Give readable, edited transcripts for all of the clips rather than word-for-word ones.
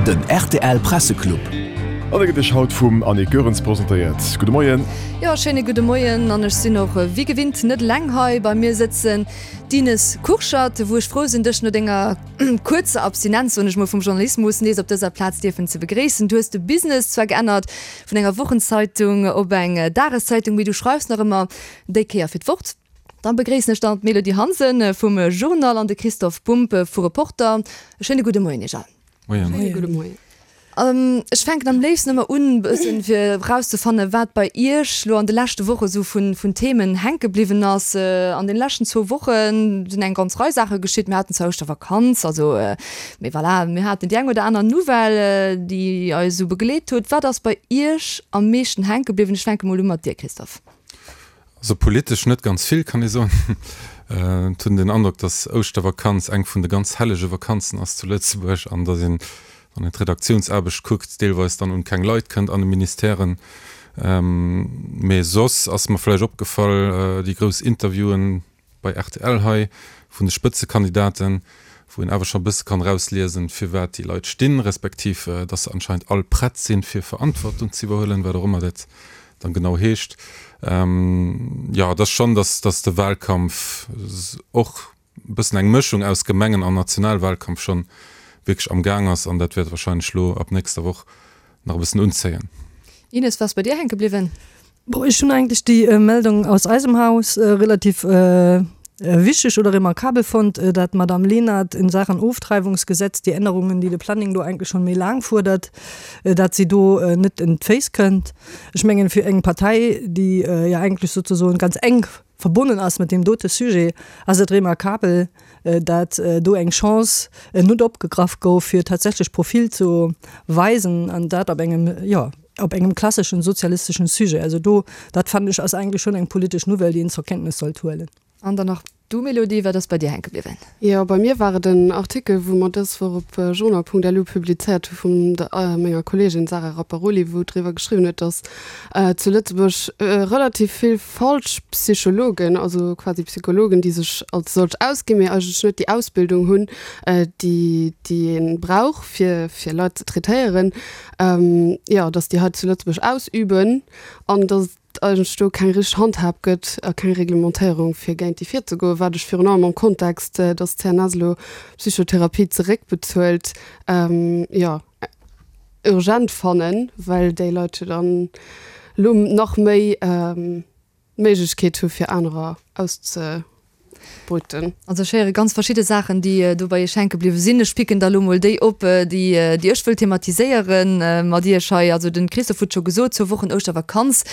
Den rtl Presseclub. An e gëtt Iech haut vum Annick Goerens presentéiert. Gudde Moien. Jo, schéine gudde Moien. An ech sinn och wéi gewinnt net eleng hei. Bei mir sëtzen d'Ines Kurschat, wou ech frou sinn, dech no denger kuerzer Abstinenz, soen ech mol, vum Journalismus nees op dëser Plaz dierfen ze begréissen. Du hues de Business zwar geännert vun enger Wochenzeitung op eng Dageszeitung, mee du schreifs nach ëmmer déi Kéier fir d'Wort. Dann begréissen ech dann d'Mélodie Hansen vum Journal an de Christophe Bumb vu Reporter. E schéine gudde Moien iech all. Moien. Schéine gudde Moien. Ech fänken am léifsten ëmmer un, e bëssen fir erauszefannen, wat bei iech lo an de leschte Woche sou vun, vun Themen hänke bliwwen ass. An den leschten zwou Woche sinn eng ganz Rei Saache geschitt. Mir haten zwar Ouschtervakanz, also, mee voilà, mir haten déi eng oder aner Nouvelle, déi eis esou begleet huet. Wat ass bei iech am meeschten hänke bliwwen? Ech fänke mol u mat dir, Christophe. Also politesch net ganz vill, kann ee soen. Et hunn den Androck, datt Ouschtervakanz eng vun de ganz hellege Vakanzen ass zu Lëtzebuerg an datt een, wann een d'Redaktiounsaarbecht kuckt, deelweis dann un keng Leit kënnt an de Ministèren. Mee soss ass mer vläicht opgefall, déi grouss Interviewen, bei rtl hei vun de Spëtzekandidaten, wou een awer scho e bësse kann erausliesen, firwat déi Leit stinn, respektiv dass se anscheinend all prett sinn, fir Verantwortung ze iwwerhuelen, wat och ëmmer dat dann genau heescht. Jo, et ass schonn, dass dass de Wahlkampf och e bëssen eng Mëschung aus Gemengen an Nationalwahlkampf schonn wierklech am Gaang ass an dat wäert wahrscheinlech elo ab nächster Woch nach e bëssen unzéien. Ines, wat ass bei dir hänke bliwwen? Bon, ech hunn eigentlech déi Meldung aus eisem Haus relativ wichteg oder remarkabel fonnt, dat d'Madame Lenert in Sachen Oftreibungsgesetz, déi Ännerungen, déi de Planning do eigentlech schonn méi laang fuerdert, dat si do net en d'Féiss kënnt. Ech mengen, fir eng Partei, déi jo eigentlech souzesoen ganz enk verbonnen ass mat deem dote Sujet, ass et remarkabel, dat do eng Chance net opgegraff gouf, fir tatsächlech Profil ze weisen, an dat op engem, jo, op engem klasseschen sozialisteschen Sujet. Also do, dat fannen ech, ass eigentlech schonn eng politesch Nouvelle, déi een zur Kenntnis sollt huelen. An dann nach du, Mélodie, wat ass bei dir hänke bliwwen? Jo, bei mir war et en Artikel, wou mer dës Woch op journal.lu publizéiert hu vun der menger Kolleegin Sarah Rapparoli, wou driwwer geschriwwen huet, datt zu Lëtzebuerg relativ vill falsch Psychologen, also quasi Psychologen, déi sech als solch ausginn, mee eigentlech net déi Ausbildung hunn, déi déi ee brauch, fir fir Leit ze traitéieren, jo, datt déi hei zu Lëtzebuerg ausüben an datt et eigentlech do keng richteg Handhab gëtt a keng Reglementéierung, fir géint déi virzegoen, wat ech virun allem am Kontext, datt d'CNS elo Psychotherapie zeréckbezuelt, jo, urgent fannen, well déi Leit jo dann elo nach méi d'Méiglechkeet hu fir anerer auszebeuten. Also ech héiere ganz verschidde Saachen, déi do bei Iech hänke bliwwe sinn. Ech picken der elo mol déi op, déi déi ech wëll thematiséiere mat Iech hei. Also de Christophe huet scho gesot, zwou Wochen Ouschtervakanz,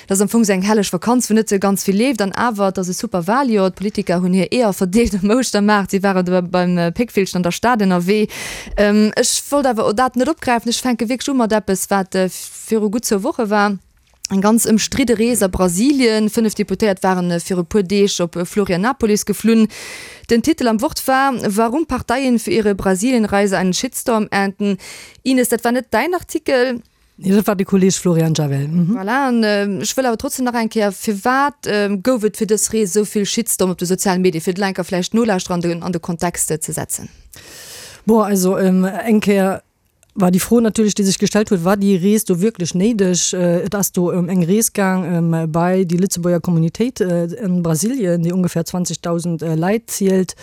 dat ass am Fong esou eng helleg Vakanz, wou net esou ganz vill leeft. An awer, et ass e super Waljoer. D'Politiker hunn hir Eeër verdeelt um Ouschtermaart, si ware do beim Péckvillchen an der Stad ënnerwee. Ech wollt awer dat net opgräifen. Ech fänke wierklech u mat eppes, wat viru gutt zwou Woche war. Eng ganz ëmstridde Rees a Brasilien. 5 Deputéiert waren viru puer Deeg op Florianapolis geflunn. Den Titel am Wort war Warum Parteien für ihre Brasilienreise einen Shitstorm ernten. Ines, dat war net däin Artikel. Nee, dat war de Kolleeg Florian Javel. Voilà, an ech wëll awer trotzdem nach eng Kéier, firwat gouf et fir dës Rees esou vill Shitstorm op de sozialen Medien, fir d'Lenker vläicht d'Nolauschterer an de Kontext ze setzen? Bon, also eng Kéier war déi Fro natierlech, déi sech gestellt huet, War déi Rees do wierklech néideg? Et ass do ëm eng Rees gaang bei déi Lëtzebuerger Communautéit an Brasilien, déi ongefähr 20.000 Leit zielt.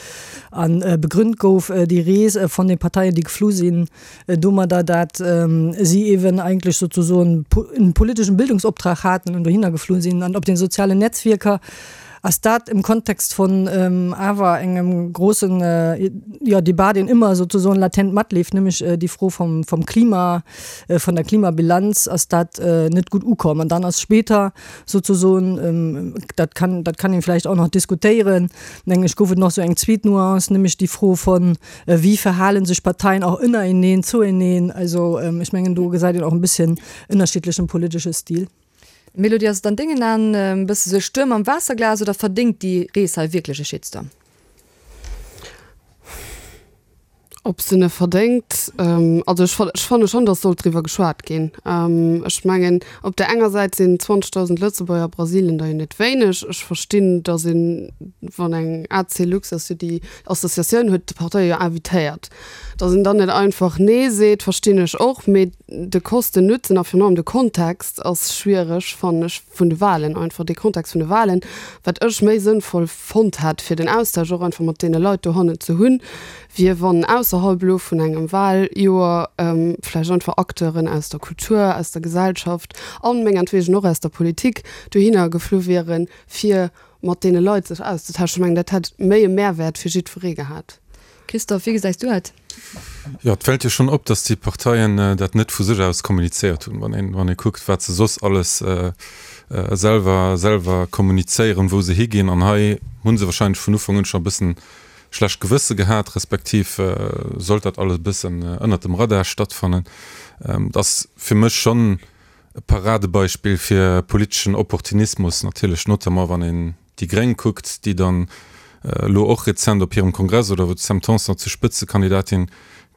A begrünnt gouf déi Rees von de Parteien, déi geflu sinn, domadder, dat si eeben eigentlech sozesoen en politeschen Bildungsoptrag haten an dohinner geflu sinn. An op den sozialen Netzwierker Ass dat im Kontext von awer engem grossen, jo, Debat, deen ëmmer sozesoen latent matleeft, nämlech déi Fro vom, vom Klima, von der Klimabilanz, ass dat net gutt ukomm. An dann ass später sozesoen, dat kann, dat kann een vläicht och nach diskutéieren, mengen ech, gouf et nach esou eng zweet Nuance, nämlech déi Fro von, Wéi verhalen sech Parteien och ënnereneen, zueneen? Also ech mengen, do gesäit een och e bësschen ënnerschiddlechen politesche Stil. Melody, ass et an dengen Aen e bësse sou e Stuerm am Waasserglas oder verdéngt déi Rees hei wierklech e Shitstorm? Ob se en verdéngt? Also ech ech fanne schonn, datt sollt driwwer geschwat ginn. Ech mengen, op där enger Säit sinn 20.000 Lëtzebuerger a Brasilien der jo net wéineg. Ech verstinn, datt een, wann eng ACLux ass jo déi Associatioun, huet d'Parteie jo invitéiert, datt een dann net einfach Nee seet, verstinn ech och. Mee de Kosten-Nutzen a virun allem de Kontext ass schwiereg, fannen ech, vun de Wahlen einfach, dee Kontext vun de Wahlen, wat ech méi sënnvoll fonnt hätt, fir den Austausch och einfach mat deene Leit dohannen ze hunn, wier wann ausserhalb elo vun engem Wahljoer vläicht einfach Acteuren aus der Kultur, aus der Gesellschaft an mengertwegen och aus der Politik dohinner geflu wieren, fir mat deene Leit sech auszetauschen. Ech mengen, dat hätt méi e Mehrwäert fir jiddweree gehat. Christophe, wéi gesäis du dat? Jo, et fält jo schonn op, datt déi Parteien dat net vu sech aus kommunizéiert hunn. Wann een, wann ee kuckt, wat se soss alles selwer, selwer kommunizéieren, wou se higinn. An hei hu se wahrscheinlech vun Ufank un scho e bëssen schlecht Gewësse gehat, respektiv sollt dat alles e bëssen ënnert dem Radar stattfannen. Et ass fir mech schonn e Paradebeispill fir politeschen Opportunismus, natierlech notamment wann een déi Gréng kuckt, déi dann elo och rezent op hirem Kongress oder wou d'Sam Tanson zur Spëtzekandidatin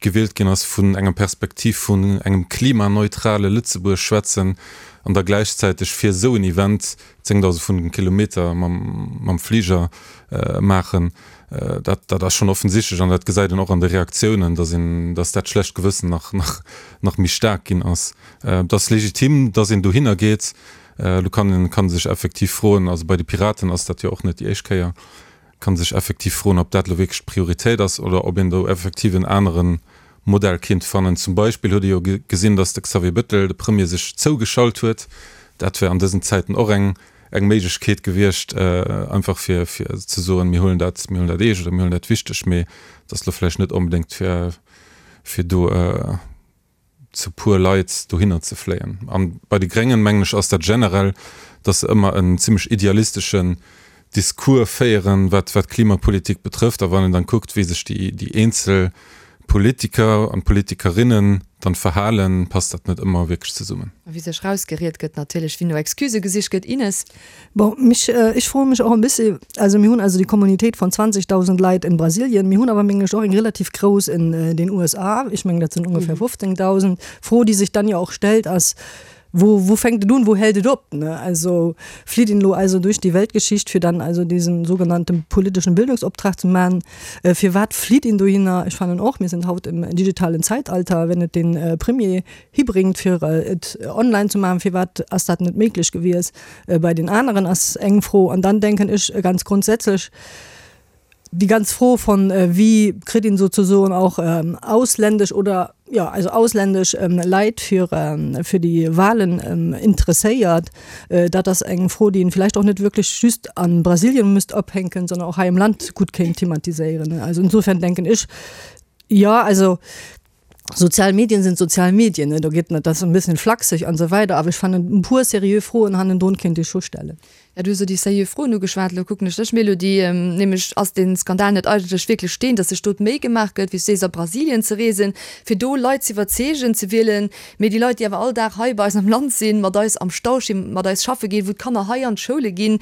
gewielt ginn ass, vun enger Perspektiv vun engem klimaneutrale Lëtzebuerg schwätzen an da gläichzäiteg fir esou en Event 10.000 vun Kilometer mam Fliger maachen, dat dat ass schonn offensichtlech an dat gesäit een och an de Reaktiounen, datt een, datt dat schlecht Gewëssen nach nach nach méi staark ginn ass. Et ass legitim, datt een dohinner geet. Elo kann een kann sech effektiv froen, also bei de Piraten ass dat jo och net déi éischt Kéier, kann sech effektiv froen, ob dat elo wierklech d'Prioritéit ass oder ob een do effektiv en anere Modell kinnt fannen. Zum Beispill huet ee jo gesinn, datt de Xavier Bettel, de Premier, sech zougeschalt huet. Dat wär an dësen Zäiten och eng eng Méiglechkeet gewiescht, einfach fir fir ze soen, mir huelen dat, mir huelen dat eescht oder mir huelen dat wichteg. Mee et ass elo vläicht net onbedéngt fir fir do zu puer Leit dohinner ze fléien. An bei de Gréngen, mengen ech, ass dat generell, datt se ëmmer en zimlech idealisteschen Discours féieren, wat wat d'Klimapolitik betrëfft. A wann een dann kuckt, wéi sech déi déi eenzel Politiker an Politikerinnen dann verhalen, passt dat net ëmmer wierklech zesummen. A wéi sech rausgeriet gëtt natierlech, wéi no Excusë gesicht gëtt. Ines. Bon, mich, ech froe mech och e bëssi, also mir hunn also déi Communautéit von 20.000 Leit in Brasilien, mir hunn awer mengen ech och eng relativ grouss in den USA, ech mengen dat sinn ongefähr 15.000. D'Fro déi sech dann jo och stellt ass, Wo, wo fänkt et un, wo hält et op? Ne? Also flitt een elo also duerch déi Weltgeschicht fir dann also diesen sogenannten politischen Bildungsoptrag ze man. Firwat flitt een dohinner? Ech fannen och, mir sinn haut im digitalen Zeitalter, wenn et den Premier hibringt fir et online ze maachen, firwat ass dat net méiglech gewies bei den aneren, ass eng Fro. An dann denken ech ganz grundsätzlech, déi ganz Fro von wéi kritt een sozusoen och ausländesch oder jo also ausländesch Leit fir fir déi Wahlen interesséiert, dat ass eng Fro, déi een vielleicht och net wierklech just a Brasilien müsst ophänken, sondern och hei am Land gutt kéint thematiséieren. Also insofern denken ech, jo also Sozial Medien sind sozial Medien, ne, do geet net, dat ass e bëssen flachseg an esou weider, awer ech fannen e puer seriö Froen hannendrun kéint ee scho stellen. Ja, du hues elo déi seriö Froen ugeschwat, elo kucken ech dech, Mélodie, nämlech ass dee Skandal net eigentlech wierklech deen, datt sech do d'Méi gemaach gëtt, wéi s du sees, a Brasilien ze reesen, fir do Leit z'iwwerzeegen, ze wielen, mee déi Leit, déi awer all Dag hei bei eis am Land sinn, mat eis am Stau stinn, mat eis schaffe ginn, wou d'Kanner hei an d'Schoule ginn,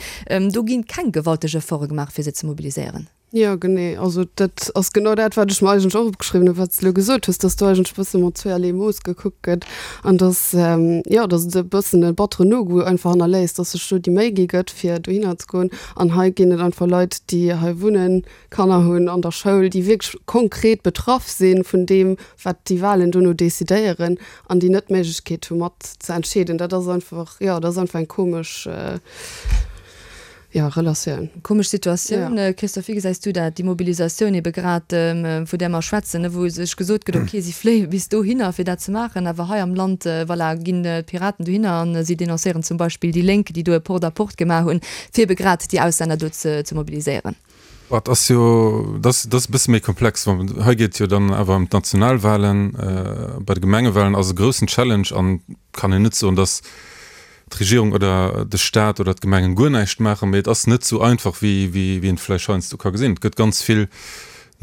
do gi keng gewalteg Efforte gemaach, fir se ze mobiliséieren. Jo, genee. Also dat ass genau dat, wat ech mer eigentlech och opgeschriwwen hunn, wat s de elo gesot hues, dass do eigentlech e bësse mat zweeërlee Mooss gekuckt gëtt an dass, jo, dass et e bëssen e batteren Nogoût einfach hannerléisst, dass sech do déi Méi gi gëtt, fir dohinner ze goen. An hei ginn et einfach Leit, déi hei wunnen, Kanner hunn an der Schoul, déi wierklech konkret betraff si vun deem, wat déi Wahlen dono decidéieren an déi net d'Méiglechkeet hu mat ze entscheeden. Dat ass einfach, jo, dat ass einfach eng komesch. Jo, Relatioun. Komesch Situatioun. Ja. Christophe, wéi gesäis du dat, déi Mobilisatioun ebe grad, vu där mer schwätzen, wou sech gesot gëtt, okay, si fléie bis dohinner, fir dat ze maachen, awer hei am Land, voilà, ginn d'Piraten dohinner a si denoncéieren zum Beispill déi Lénk, déi do e Porte-à-porte gemaach hunn, fir ebe grad déi Auslänner do ze mobiliséieren. Et ass jo, dat ass, dat ass e bësse méi komplex. Hei geet et jo dann awer ëm d'Nationalwahlen. Bei de Gemengewahlen ass e groussen Challenge an kann een net soen, datt d'Regierung oder de Staat oder d'Gemengen guer näischt maachen, mee et ass net esou einfach, wéi een et vläicht heiansdo ka gesinn. Et gëtt ganz vill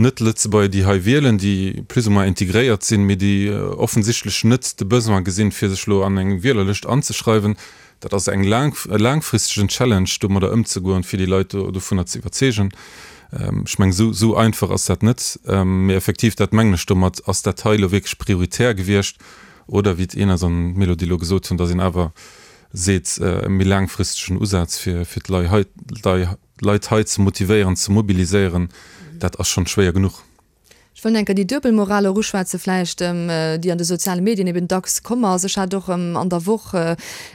Net-Lëtzebuerger, déi hei wielen, déi plus ou moins integréiert sinn, mee déi offensichtlech net de Besoin gesinn, fir sech elo an eng Wielerlëscht anzeschreiwen. Dat ass eng laang, e laangfristegen Challenge, domadder ëmzegoen, fir déi Leit dovunner ze iwwerzeegen. Ech mengen, esou, esou einfach ass dat net. Mee effektiv, dat mengen ech domat, ass dat hei elo wierklech prioritär gewiescht oder, wéi d'Ines an d'Mélodie elo gesot hunn, datt een awer seet, e méi laangfristegen Usaz fir, fir d'Lei hei, d'Leit hei ze motivéieren, ze mobiliséieren, dat ass schonn schwéier genuch. Ech wëll enker déi Duebelmoral och uschwätze vläicht, déi an de soziale Medien eben dacks komm ass. Ech hat och an der Woch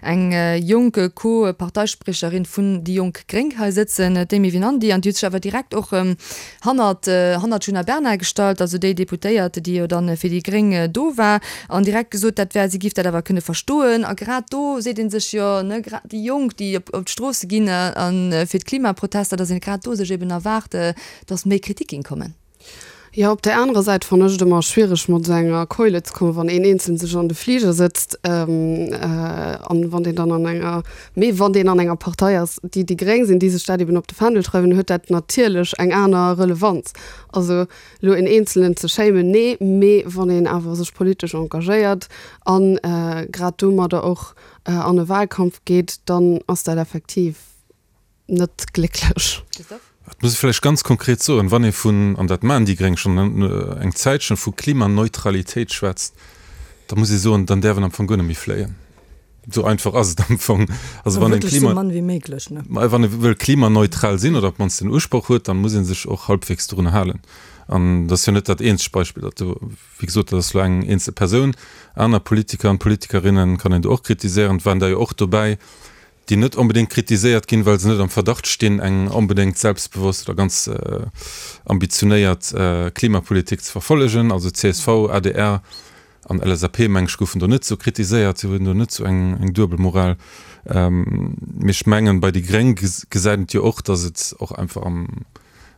eng jonk Co-Parteispriecherin vun déi jonk Gréng hei sëtzen, d'Amy Winandy, an déi huet sech awer direkt och hannert hannert d'Djuna Bernard gestallt, also déi Deputéiert, déi jo dann fir déi Gréng do war, an direkt gesot, dat wär, si giff dat awer kënne verstoen. A grad do seet ee sech jo, ne, grad déi Jonk, déi op d'Stroosse ginn a fir d'Klimaprotester, datt een grad do sech eben erwaart, datt méi Kritik géing kommen. Jo, op där anerer Säit fannen ech et ëmmer schwiereg mat esou enger Keule ze kommen, wann een Eenzelen sech an de Fliger sëtzt an wann deen dann an enger, mee wann deen an enger Partei ass, déi déi Gréng sinn, déi sech dat eben op de Fändel schreiwen, huet dat natierlech eng aner Relevanz. Also elo een Eenzelen ze shamen, nee, mee wann een awer sech politesch engagéiert an grad domadder och an e Wahlkampf geet, dann ass dat effektiv net glécklech. Et muss ee vläicht ganz konkret soen, wann ee vun, an dat maachen déi Gréng schonn eng Zäitchen, vu Klimaneutralitéit schwätzt, da muss ee soen, dann däerf een am Fong guer net méi fléien. Esou einfach ass et am Fong. Also wann een Klima, wann ee wëll klimaneutral sinn oder op d'mannst den Usproch huet, dann muss ee sech och halbwegs dorunner halen. An dat ass jo net dat eenzegt Beispill, dat do, wéi gesot, dat ass elo eng eenzel Persoun. Aner Politiker an Politikerinnen kann een do och kritiséieren, et waren der jo och dobäi, déi net onbedéngt kritiséiert ginn, well se net am Verdacht stinn, eng onbedéngt selbstbewosst oder ganz ambitionéiert Klimapolitik ze verfollegen. Also csv, adr an LSAP, meng ech, goufen do net esou kritiséiert. Si hunn do net esou eng duebel Moral. Mee ech mengen, bei déi Gréng gesäit een et jo och, datt et och einfach am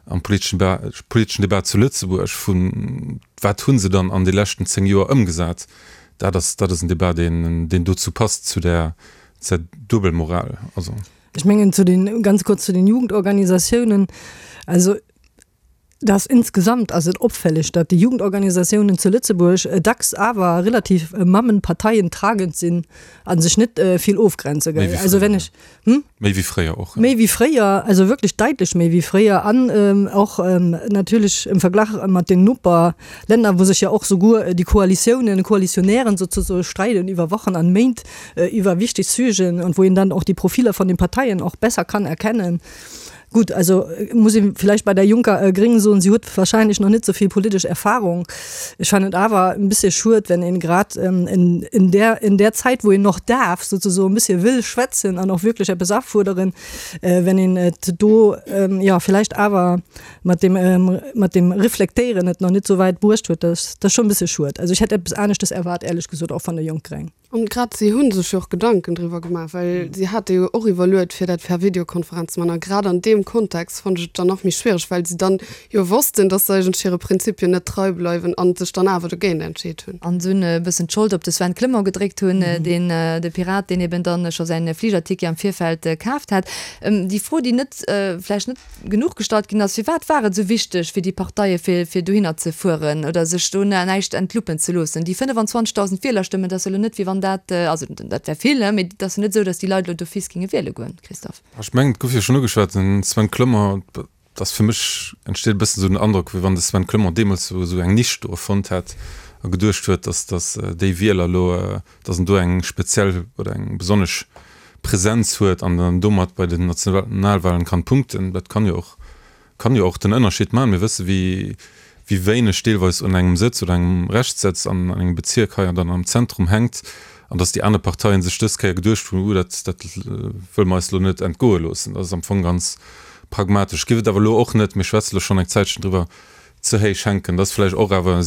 am politeschen politeschen Debat zu Lëtzebuerg vun, wat hu se dann an de leschten 10 Joer ëmgesat, dat ass dat ass en Debat, deen deen dozou passt, zu där Zur Duebelmoral, also. Ech mengen zu den, ganz kurz zu den Jugendorganisatiounen, also dass insgesamt ass et opfälleg, datt déi Jugendorganisatiounen zu Lëtzebuerg dacks awer relativ mammenparteientragend sinn a sech net vill ofgrenze, gell. Also wenn ech, hm? Méi wéi fréier och. Méi wéi fréier, also wierklech daitlech méi wéi fréier an och natierlech im Verglach mat den Noperlänner, wou sech jo och souguer déi Koalitiounen, Koalitionären sozesoe streiden iwwer Wochen an Méint iwwer wichteg Sujeten an wou een dann och déi Profiler von den Parteien och besser kann erkennen. Gut, also muss ee vielleicht bei der Juncker Gring soen, si huet wahrscheinlech nach net sou vill politesch Erfahrung. Ech fannen et awer en bëssche schued, wenn een grad in, in der, in der Zäit, wou een noch darf, sozesoen, e bëssche wëll schwätzen an och wierklech eppes afuerderen, wenn een et do, jo, vielleicht awer mat dem, mat dem Reflektéieren et nach net sou wäit bruecht huet. Dat ass schonn e bëssche schued. Also ech hätt eppes aneschtes erwaart, éierlech gesot, och van der Jonk Gréng. An grad si hu sech jo och Gedanken driwwer gemaach, well si hate jo och iwwerluet, fir dat per Videokonferenz ze maachen. A grad an deem Kontext fonnt ech et dann nach méi schwiereg, well si dann jo wossten, datt se eigentlech hire Prinzipien net trei bleiwen a sech dann awer dogéint entscheet hunn. An dunn e bëssen d'Schold op de Sven Clement gedréckt hunn, deen, de Pirat, deen eben dann scho säin Fligerticket am Virfeld kaaft hat. Déi Fro, déi net, vläicht net genuch gestallt ginn ass, Firwat war et esou wichteg fir déi Parteie fir fir dohinner ze fueren oder sech do näischt entluppen ze loossen? Déi 25.000 Wielerstëmmen, dat ass jo elo net wéi wann dat, also dat wär vill, mee et ass jo net esou, datt déi Leit elo d'office géinge wiele goen, Christophe. Ech mengen, et gouf jo schonn ugeschwat, den Sven Clement, et ass fir mech entsteet e bëssen esou den Androck, wéi wann de Sven Clement deemools esou esou eng Nisch do erfonnt hätt a geduecht huet, datt datt déi Wieler elo, datt en do eng speziell oder eng besonnesch Präsenz huet an dann domat bei den Nationalwahlen kann punkten. Dat kann jo och, kann jo och den Ënnerscheed maachen. Mir wësse wéi, wéi wéineg deelweis un engem Sëtz oder engem Reschtsëtz an engem Bezierk hei an dann am Zentrum hänkt an datt déi aner Parteien sech dës Kéier geduecht hunn, Uh, dat, dat wëlle mer eis elo net entgoe loossen. Dat ass am Fong ganz pragmatesch. Giff et awer elo och net, mir schwätze lo schonn eng Zäitchen driwwer, ze héich hänken. Dat ass vläicht och awer e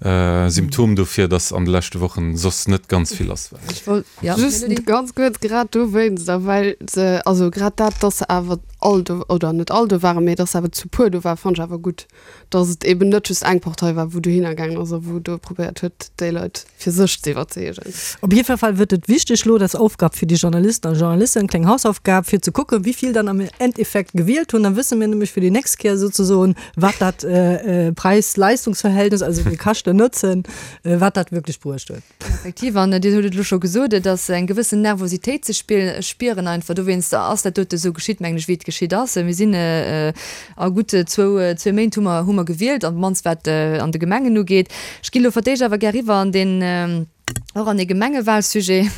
Symptom dofir, dass an de leschte Wochen soss net ganz vill lass war. Ech wollt, ja, Just Melody? ganz kuerz, grad dowéinst a well se, also grad dat, dass se awer all do, oder net all do waren, mee dass se awer zu puer do waren, fannt ech awer gutt, dass et eben net just eng Partei war, wou dohinner gaangen ass a wou do probéiert huet, déi Leit fir sech ze iwwerzeegen. Op jiddwer Fall wërt et wichteg elo, dat ass Aufgab fir déi Journalisten a Journalisten, kleng Hausaufgab, fir ze kucken, wéi vill dann am Endeffekt gewielt hunn. Da wësse mir nämlech fir déi nächst Kéier souzesoen, wat dat Preis-Leistungs-Verhältnis, also de Käschten-Nutzen, wat dat wierklech bruecht huet. Effektiv, an Dir hutt et elo scho gesot, et ass eng gewëssen Nervositéit ze spieren einfach. Dowéinst ass dat dote esou geschitt, mengen ech, wéi et geschitt. geschitt ass. Mir sinn a gutt zwou, zwee Méint hu mer, hu mer gewielt, an d'mannst wat an de Gemengen ugeet. Ech ginn elo fir d'éischt awer gär eriwwer an deen, och an ee Gemengewalsujet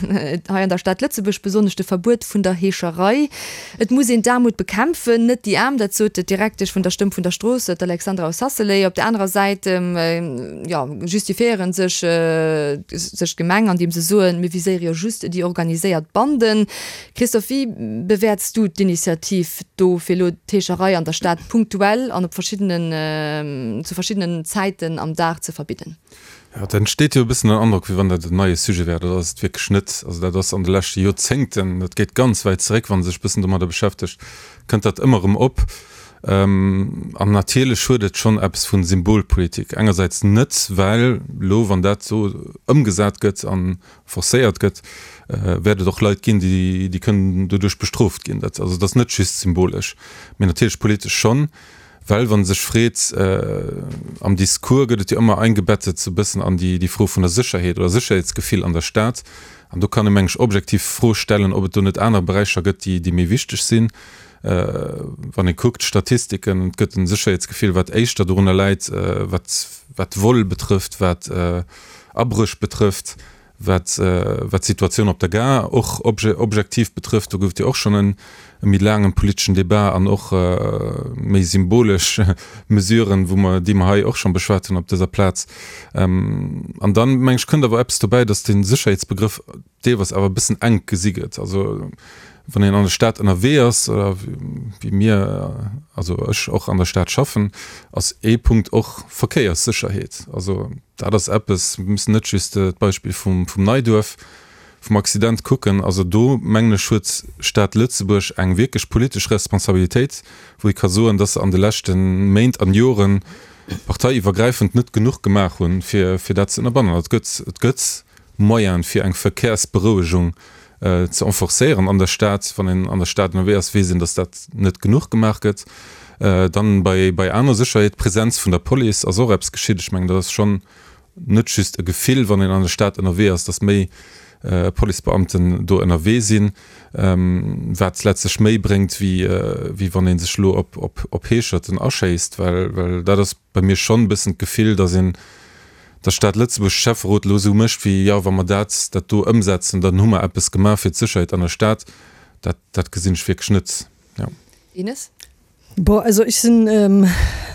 hei an der Stad Lëtzebuerg, besonnesch de Verbuet vun der Heescherei. Et muss een d'Aarmut bekämpfen, net déi Aarm, dat sot d'Direktesch vun der Stëmm vun der Strooss, d'Alexandra Ossasselé. Op der anerer Säit, jo, justifiéiere sech sech d'Gemeng, andeem se soen, mir viséiere jo just déi organiséiert Banden. Christophe, wéi bewäerts du d'Initiativ do, fir elo d'Heescherei an der Stad punktuell an op verschiddenen, zu verschiddenen Zäiten am Dag ze verbidden? Jo, et entsteet jo e bëssen den Androck, wéi wann dat en neie Sujet wär. Dat ass et wierklech net. Also dat ass an de leschte Joerzéngten, dat geet ganz wäit zeréck, wann ee sech e bëssen domadder beschäftegt, kënnt dat ëmmer erëm op. An natierlech huet et schonn eppes vu Symbolpolitik. Engersäits net, well elo, wann dat esou ëmgesat gëtt a forcéiert gëtt, wäert et och Leit ginn, déi kënnen doduerch bestrooft ginn. Dat, also et ass net just symbolesch, mee natierlech politesch schonn. Well wann e sech freet, am Discours gëtt et jo ëmmer eingebettet sou e bëssen an déi Fro vun der Sécherheet oder Sécherheetsgefill an der Stad. An do kann ee meng ech objektiv d'Fro stellen, ob et do net aner Beräicher gëtt, déi méi wichteg sinn. Wann ee kuckt d'Statistiken, et gëtt en Sécherheetsgefill, wat éischter dorunner läit, wat Vol betrëfft, wat Abréch betrëfft. Wat d'Situatioun op der Gare och objektiv betrëfft, do gouf et jo och schonn e méi laangen politeschen Debat an och méi symbolesch Mesuren, wou mer, déi mer hei och schonn beschwat hunn op dëser Plaz. An dann, meng ech, kënnt awer eppes dobäi, dass de Sécherheetsbegrëff deelweis awer e bëssen enk gesi gëtt. Also wann een an der Stad ënnerwee ass, oder wéi mir, also ech och an der Stad schaffen, ass ee Punkt och Verkéierssécherheet. Also Dat ass eppes, mir müssen net just d'Beispill vum Neiduerf, vum Accident kucken. Also do, mengen ech, huet d'Stad Lëtzebuerg eng wierklech politesch Responsabilitéit, wou ee ka soen, dass se an de leschte Méint an Joren parteiiwwergräifend net genuch gemaach hunn, fir dat ze ënnerbannen. Et gëtt, et gëtt Moyene fir eng Verkehrsberouegung ze enforcéieren an der Stad. Wann een an der Stad ënnerwee ass, weess een, dass dat net genuch gemaach gëtt. Dann bei, bei aner Sécherheet, d'Präsenz vun der Police ass och eppes geschitt. Ech mengen, dat ass schonn net just e Gefill, wann een an der Stad ënnerwee ass, dass méi Policebeamten do ënnerwee sinn, wat letztlech méi bréngt, wéi, wéi wann ee sech elo op, op, op Heescherten aschéisst, well, well dat ass bei mir schonn e bëssen d'Gefill, dass een, dass d'Stad Lëtzebuerg, de Schäfferot elo esou mécht wéi, jo, wa mer dat, dat do ëmsetzen, dann hu mer eppes gemaach fir d'Sécherheet an der Stad. Dat, dat gesinn ech wierklech net, jo. Ines? Bon, also ech sinn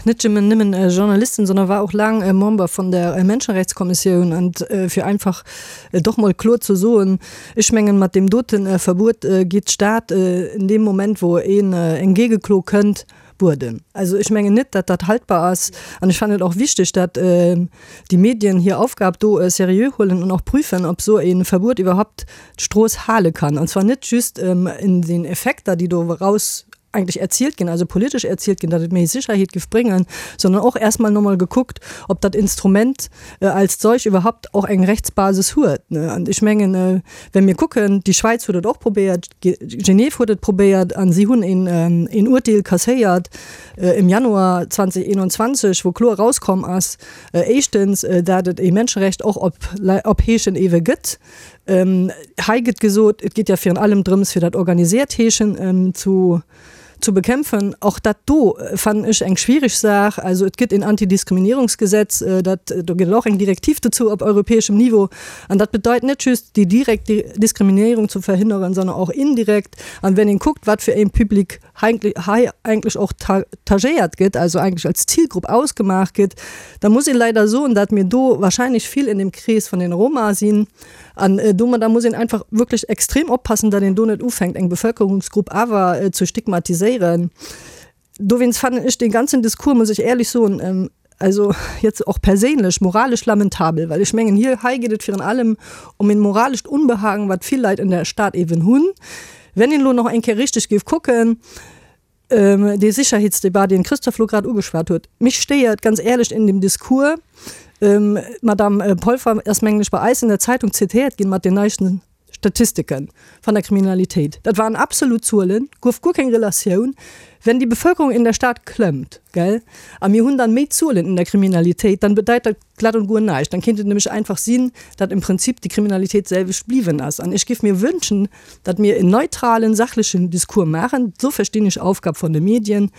net nëmmen nëmmen Journalistin, sondern war och laang Member vun der Menschenrechtskommissioun. An fir einfach et och mol kloer ze soen, ech mengen, mat deem dote Verbuet geet d'Stad in deem Moment, wou een eng Géigeklo kënnt, Bueden. Also ech mengen net, datt dat haltbar ass. An ech fannen et och wichteg, datt déi Medien hir Aufgab do seriö huelen an och prüfen, ob esou e Verbuet iwwerhaupt d'Strooss hale kann. An zwar net just in den Effekter, déi do eraus eigentlech erzielt ginn, also politesch erzielt ginn, datt et méi Sicherheet giff bréngen, sondern och erst mal nochmol gekuckt, ob dat Instrument als solch iwwerhaupt och eng Rechtsbasis huet. An ech mengen, Well mir kucken, déi Schwäiz huet et och probéiert, Genève huet et probéiert a si hunn een Urteel kasséiert im Januar 2021, wou kloer erauskomm ass, éischtens, dat et ee Menscherecht och op Heeschen ewe gëtt. Hei gëtt gesot, et geet jo virun allem drëms, fir dat organisiert Heeschen zu zu bekämpfen. Och dat do fannen ech eng schwierig Saach. Also et gëtt een Antidiskriminierungsgesetz, dat, do gëtt et och eng Direktiv dozou op europäeschem Niveau. An dat bedeit net just déi direkt Diskriminierung ze verhinderen, sondern och indirekt. An wenn een kuckt, wat fir een Public hei eigentlech och tagéiert gëtt, also eigentlech als Zielgrupp ausgemaach gëtt, da muss een leider soen, dat mir do wahrscheinlech vill in dem Krees vun den Roma sinn. An domadder muss een einfach wierklech extrem oppassen, datt een do net ufänkt, eng Bevölkerungsgrupp awer ze stigmatiséieren. Dowéinst fannen ech dee ganzen Discours, muss ech éierlech soen, also jetzt och perséinlech, moralesch lamentabel, well ech mengen, hier, hei geet et virun allem ëm en moralescht Unbehagen, wat vill Leit an der Stad eeben hunn. Wenn een elo nach eng Kéier richteg géif kucken, Dee Sicherheetsdebat, deen d'Christophe elo grad ugeschwat huet, mech stéiert ganz éierlech in dem Discours, d'Madame Polfer ass, mengen ech, bei eis in der Zeitung zitiert ginn mat den neisten Statistiken van der Kriminalitéit. Dat waren absolut Zuelen, gouf guer keng Relatioun. Wenn die Bevölkerung in der Stadt klëmmt, gell, a mir hunn dann méi Zuelen in der Kriminalitéit, dann bedeit dat glatt und guer näischt. Dann kéint et nämlech einfach sinn, datt im Prinzip déi Kriminalitéit d'selwecht bliwwen ass. An ech géif mir wënschen, datt mir en neutralen, sachlechen Discours maachen, esou verstinn ech Aufgab von de Medien,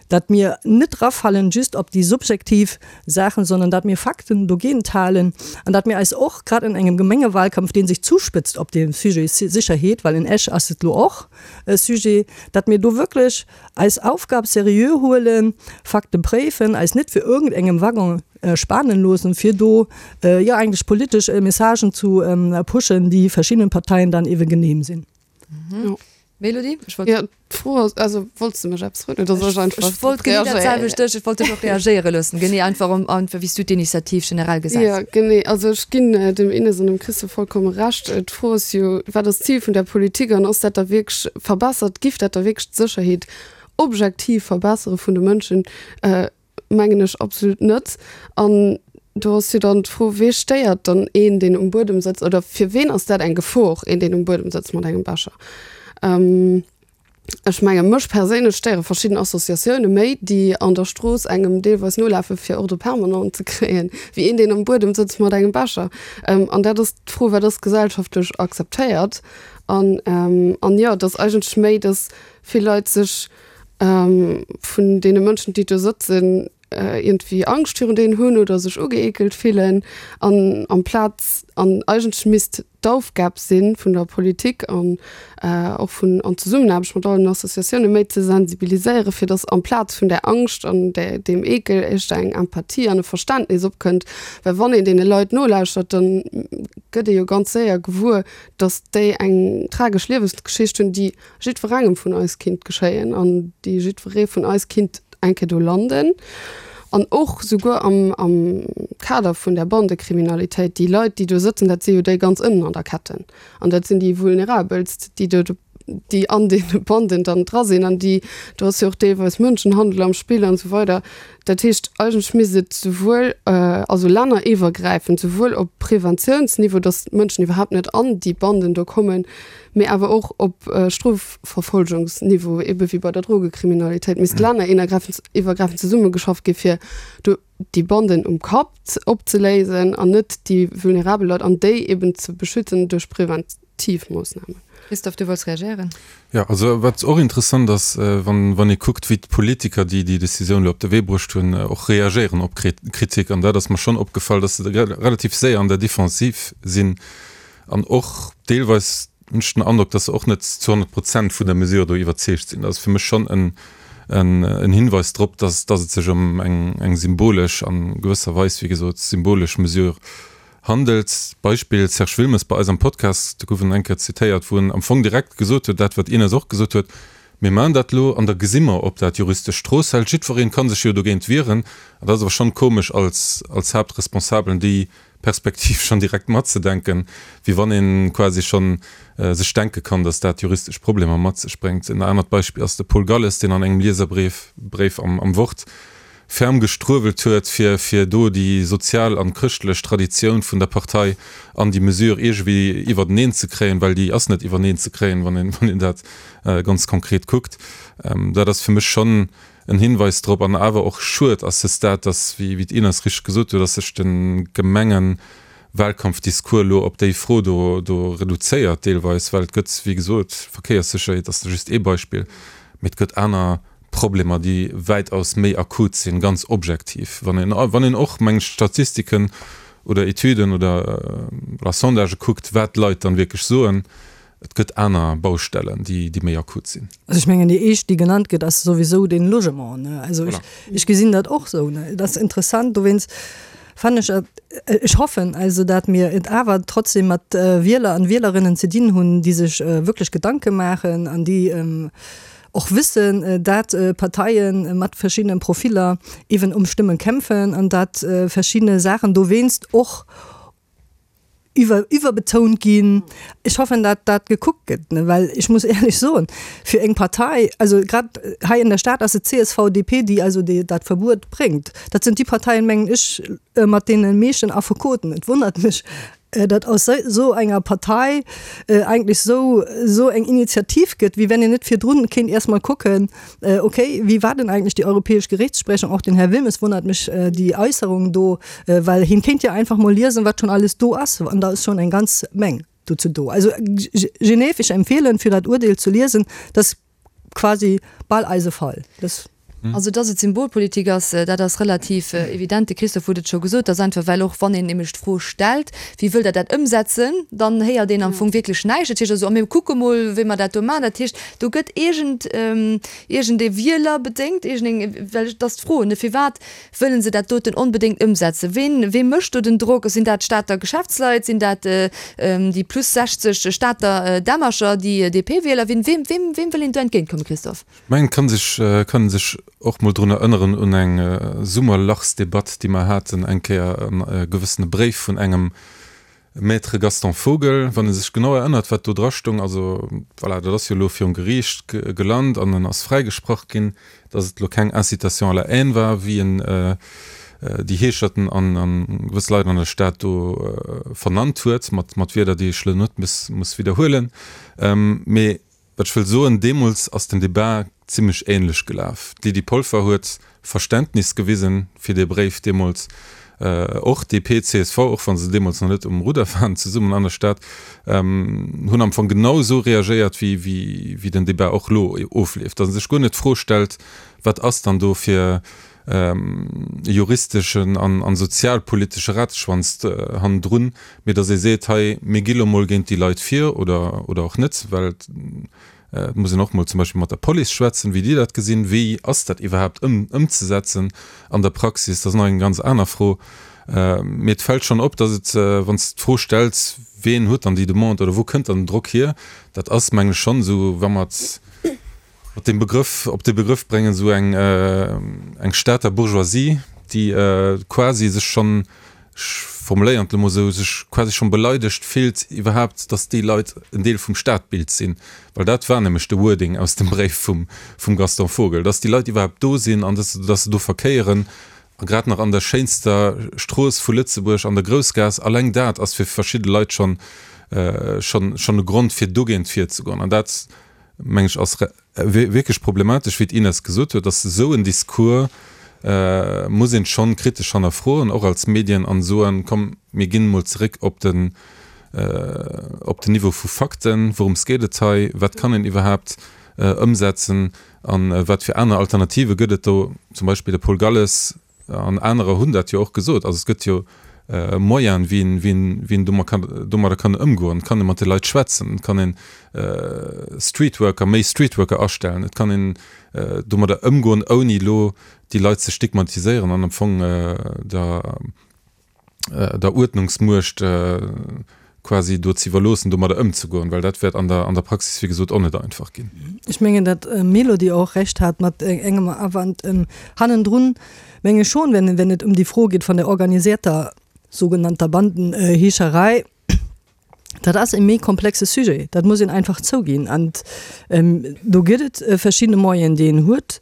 datt mir net erafallen just op déi subjektiv Saachen, sondern datt mir Fakten dogéint halen an datt mir eis och, grad an engem Gemengewahlkampf, dee sech zuspëtzt op dem Sujet Sécherheet, well in Esch ass et elo och e Sujet, datt mir do wierklech eis Aufgab seriö huelen, Fakte préifen, eis net fir irgendengem Waggon spanen loossen, fir do jo eigentlech politesch Messagen zu pushen, déi verschiddenen Parteien dann ewe genehm sinn. Mélodie, ech wollt. Jo, d'Fro ass, also wollts de mech eppes froen oder soll ech einfach Ech wollt genee dat selwecht dech, ech wollt dech och reagéiere loossen, genee einfach um, einfach wéi s du d'Initiativ generell gesäis. Jo, genee, also ech ginn dem Ines an dem Christophe vollkomme Recht. D'Fro ass jo, wat ass d'Zil vun der Politik an ass dat da wierklech verbessert, giff dat da wierklech d'Sécherheet objektiv verbessere vun de Mënschen? Mengen ech absolut net. An do ass jo dann d'Fro, Wee stéiert dann een, deen um Buedem sëtzt? Oder fir ween ass dat eng Gefor, een, deen um Buedem sëtzt mat engem Becher? Ech menge mech perséinlech stéiere verschidden Associatioune méi, déi an der Strooss engem deelweis nolafe fir Ordre permanent ze kréien, wéi een, deen am Buedem sëtzt mat engem Becher. An dat ass d'Fro, Wat ass gesellschaftlech akzeptéiert? An, an jo, et ass eigentlech méi, datt vill Leit sech vun deene Mënschen, déi do sëtzen, iergendwéi Angscht virun deenen hunn oder sech ugeekelt fillen. An amplaz, an eigentlech misst d'Aufgab si vun der Politik an och vun an Zesummenaarbecht mat allen Associatiounen, méi ze sensibiliséieren, fir datt amplaz vun där Angscht an där, deem Eekel éischter eng Empathie an e Verständnis opkënnt. Well wann een deene Leit nolauschtert, da gëtt ee jo ganz séier gewuer, datt déi eng tragesch Liewensgeschicht hunn, déi jiddwerengem vun eis kinnt geschéien an déi jiddweree vun eis kinnt eng Kéier do landen. An och souguer am, am Kader vun der Bandekriminalitéit, déi Leit, déi do sëtzen, dat si jo déi ganz ënnen an der Ketten. An dat sinn déi Vulnerabelst, déi do, déi an deene Banden dann dra sinn an déi, do ass jo och deelweis Mënschenhandel am Spill an esou weider. Dat heescht, eigentlech misst et souwuel, also länneriwwergräifend, souwuel op Preventiounsniveau, datt d'Mënschen iwwerhaapt net an déi Banden do kommen, mee awer och op Strofverfolgungsniveau, ebe wéi bei der Drogekriminalitéit, misst länneriwwergräifend zesummegeschafft gi fir do déi Banden um Kapp opzeléisen an net déi vulnerabel Leit an déi eben ze beschützen duerch preventiv Moossnamen. Christophe, du wollts reagéieren? Jo, also wat och interessant ass, wann wann ee kuckt, wéi d'Politiker, déi déi Decisioun elo op de Wee bruecht hunn, och reagéieren op Kritik, an dat ass mer schonn opgefall, dass se relativ séier an der Defensiv sinn, An och deelweis hunn ech den Androck, dass se och net zu 100 Prozent vun der Mesure do iwwerzeegt sinn. Dat ass fir mech schonn en en Hinweis drop, dass dass et sech ëm eng eng symbolesch, an gewësser Weis, wéi gesot, symbolesch Mesure handelt. Beispill Serge Wilmes bei eis am Podcast, do gouf en eng Kéier zitéiert, wou en am Fong direkt gesot huet, dat wat Ines och gesot huet, Mir maachen dat elo an da gesi mer, ob dat juristesch Strooss hält. Jiddwereen ka sech jo dogéint wieren. An dat ass awer schonn komesch als als Haaptresponsabelen déi Perspektiv schonn direkt matzedenken, wéi wann ee quasi schonn sech denke kann, datt dat juristesch Problemer mat sech bréngt. En anert Beispill ass de Paul Galles, deen an engem Lieserbréif Bréif am am Wort ferm gestruewelt huet, fir fir do déi sozial an chrëschtlech Traditioun vun der Partei an déi Mesure iergendwéi iwwerteneen ze kréien, well déi ass net iwwerneen ze kréien, wann een wann een dat ganz konkret kuckt. Dat ass fir mech schonn en Hinweis drop an awer och schued à ce stade, dass, wéi d'Ines richteg gesot huet, dass sech de Gemengewahlkampfdiscours elo op déi Fro do do reduzéiert deelweis, well et gëtt, wéi gesot, Verkéierssécherheet ass just ee Beispill, mee et gëtt aner Problemer, déi wäitaus méi akut sinn, ganz objektiv, wann een wann een och, meng ech, Statistiken oder Etüden oder voilà Sondagë kuckt, wat d'Leit dann wierklech soen. Et gëtt aner Baustellen, déi méi akut sinn. Also ech mengen, déi éischt, déi genannt gëtt, ass souwisou den Logement, ne. Also ech, ech gesinn dat och esou, ne. Et ass interessant, dowéinst fannen ech et, ech hoffen also, dat mir et awer trotzdem mat Wieler an Wielerinnen ze dinn hunn, déi sech wierklech Gedanke maachen an déi och wëssen, dat Parteie mat verschiddenen Profiller eeben ëm Stëmme kämpfen an dat verschidde Saachen dowéinst och iwwer iwwerbetount ginn. Ech hoffen, dat dat gekuckt gëtt, ne, well ech muss éierlech soen, fir eng Partei, also grad hei an der Stad ass et csv, DP, déi also déi dat Verbuet bréngt. Dat sinn déi Parteien, mengen ech, mat deene meeschten Affekoten. Et wonnert mech. datt aus esou enger Partei eigentlech esou esou eng Initiativ gëtt, wéi wenn een net virdrun kéint erst mol kucken, okay, wéi war denn eigentlech déi europäesch Gerichtssprechung? Och den Här Wilmes wonnert mech déi Äusserung do, well hien kéint jo einfach mol liesen, wat schonn alles do ass, an da ass schonn eng ganz Meng dozou do. Also Genève, ech empfehlen, fir dat Urdeel ze liesen, dat quasi bal eise Fall. Das Also, dass et Symbolpolitik ass, dat ass relativ evident. De Christophe huet et scho gesot, dass einfach, well och wann een nämlech d'Fro stellt, Wéi wëllt Der dat ëmsetzen?, dann héiert een am Fong wierklech näischt. Dat heescht also, a mir kucke mol, wéi mer dat do maachen. Dat heescht, do gëtt iergend, iergendee Wieler bedéngt, iergendeng, well et ass d'Fro, ne, firwat Wëllen se dat doten onbedéngt ëmsetzen? Ween, wee mécht do den Drock? Sinn dat d'Stater Geschäftsleit? Sinn dat déi plus 60 Stater Dämmercher, déi DP-Wieler? Wien, weem, weem, weem wëll een do entgéintkommen, Christophe? Ech mengen, et kann sech, kann ee sech och mol drun erënneren un eng Summerlachsdebatt, déi mer haten eng Kéier, e gewëssene Bréif vun engem Maître Gaston Vogel, wann e sech genau erënnert, wat do dra stoung, also voilà, dat ass jo elo virum Geriicht gelant an en ass fräigesprach ginn, datt et elo keng Incitation à la haine war, wéi en déi Heescherten an gewëss Leit an der Stad do vernannt huet, mat Wierder, déi ech elo net muss widderhuelen. Mee Wat ech wëll soen, deemools ass den Debat zimlech ähnlech gelaf. D'Lydie Polfer huet Verständnis gewisen fir dee Bréif deemools. Och DP, csv, och wa se deemools nach net um Rudder waren zesummen an der Stad, hunn am Fong genau esou reagéiert, wéi den Debat och elo ofleeft. Datt ee sech guer net d'Fro stellt, wat ass dann do fir e juristeschen an sozialpolitesche Rateschwanz hannendrun, mee datt ee seet, hei mir gi lo mol géint déi Leit vir oder oder och net, well et muss een och mol zum Beispill mat der Police schwätzen, wéi déi dat gesinn, wéi ass dat iwwerhaapt ëmzesetzen an der Praxis, dat ass nach eng ganz aner Fro. Mee et fält schonn op, datt et, wann s de d'Fro stells, ween huet dann déi Demande oder wou kënnt dann den Drock hier, dat ass meng ech schonn esou, wa mer mat deem Begrëff, op dee Begrëff bréngen, esou eng, eng Stater Bourgeoisie, déi quasi sech schonn, ech formuléieren et elo mol esou, sech quasi schonn beleidegt fillt iwwerhaapt, datt déi Leit en Deel vum Stadbild sinn. Well dat war nämlech de Wording aus dem Bréif vum, vum Gaston Vogel, datt déi Leit iwwerhaapt do sinn an datt, datt se do verkéieren a grad nach an der schéinster Strooss vu Lëtzebuerg, an der Groussgaass. Alleng dat ass fir verschidde Leit schonn, schonn, schonn e Grond fir dogéint virzegoen. An dat meng ech, ass wierklech problematesch, wéi d'Ines gesot huet, dass esou en Discours muss een schonn kritesch hannerfroen, och als Medien, an soen, komm mir ginn emol zeréck op den op den Niveau vu Fakten, wourëms geet et hei, wat kann een iwwerhaapt ëmsetzen an wat fir aner Alternative gëtt et do, zum Beispill de Paul Galles An anerer hunn dat jo och gesot. Also et gëtt jo Moyenen, wéi een, wéi een, wéi een domat kann, domadder kann ëmgoen. Et kann ee mat de Leit schwätzen, et kann een Streetworker, méi Streetworker astellen, et kann een domadder ëmgoen, ouni elo déi Leit ze stigmatiséieren an am Fong der, der Uerdnungsmuecht quasi do ze iwwerloossen, domadder ëmzegoen, well dat wäert an der, an der Praxis, wéi gesot, och net einfach ginn. Ech mengen, datt d'Mélodie och Recht hat mat engem Awand hannendrun, menge ech schon, wenn, wenn et ëm déi Fro geet vun der organisierter sogenannter Bandenheescherei. Dat ass e méi komplexe Sujet, dat muss een einfach zouginn. An do gëtt et verschidde Moyenen, déi een huet,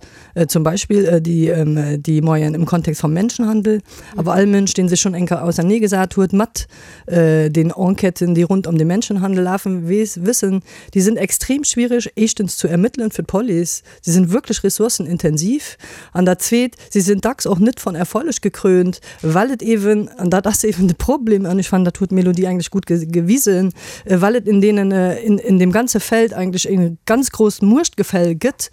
zum Beispill déi Moyenen im Kontext vom Menschenhandel. Awer all Mënsch, dee sech schonn eng Kéier auserneegesat huet mat den Enquêten, déi rund ëm de Menschenhandel lafen, weess, wëssen, déi sinn extrem schwierig, éischtens zu ermëttelen fir d'Police, si sinn wierklech ressourcenintensiv, an dat Zweet, si sinn dacks och net von Erfolleg gekrönt, well et eeben, an dat ass eeben de Problem, an ech fannen, dat huet d'Mélodie eigentlech gutt gewisen, well et in deenen, in deem ganze Feld eigentlech e ganz grousst Muechtgefäll gëtt.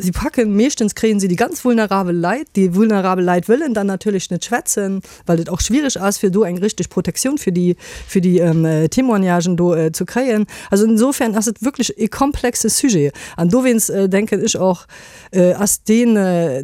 Si packen, meeschtens kréien si déi ganz vulnerabel Leit. Déi vulnerabel Leit wëllen dann natierlech net schwätzen, well et och schwierig ass, fir do eng richteg Protektioun fir déi, fir déi Témoignagen do ze kréien. Also insofern ass et wierklech e komplexe Sujet. An dowéinst denken ech och, ass deen,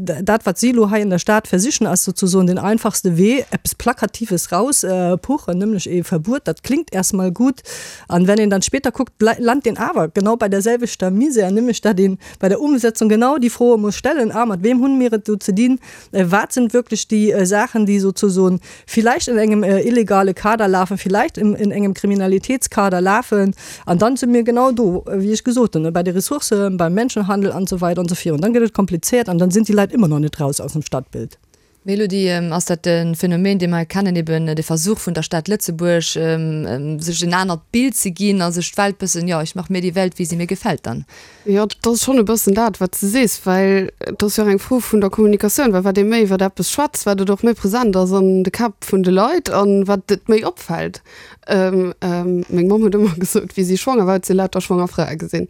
dat wat si elo hei an der Stad versichen, ass sozusoen den einfachste Wee, eppes Plakatives rauspuchen, nämlech ee Verbuet. Dat klingt erstmal gut. An wenn een dann später kuckt, lant een awer genau bei der selwechter Misär, nämlech datt ee bei der Umsetzung genau déi Froe muss stellen, ah, mat weem hunn mir et do ze dinn, wat sind wirklich déi Saachen, déi sozusoen vielleicht in engem illegale Kader lafen, vielleicht in engem Kriminalitätskader lafen. An dann si mir genau do, wéi ech gesot hunn, bei de Ressourcen, beim Menschenhandel an esou weider an esou virun. Dann gëtt et kompliziert an dann sinn déi Leit ëmmer nach net raus aus dem Stadtbild. Mélodie, ass dat e Phänomen, dee mer kennen, eben de Versuch vun der Stad Lëtzebuerg, sech en anert Bild ze ginn a sech d'Welt bëssen, jo, ich mach mir die Welt, wie sie mir gefällt dann? Jo, dat ass schonn e bëssen dat, wat s de sees, well et ass jo och eng Fro vun der Kommunikatioun, well wat ee méi iwwer eppes schwätzt, wat et och méi present ass an de Käpp vun de Leit an wat et méi opfält. Meng Mamm huet ëmmer gesot, wéi si schwanger war, huet si lauter schwanger Frae gesinn.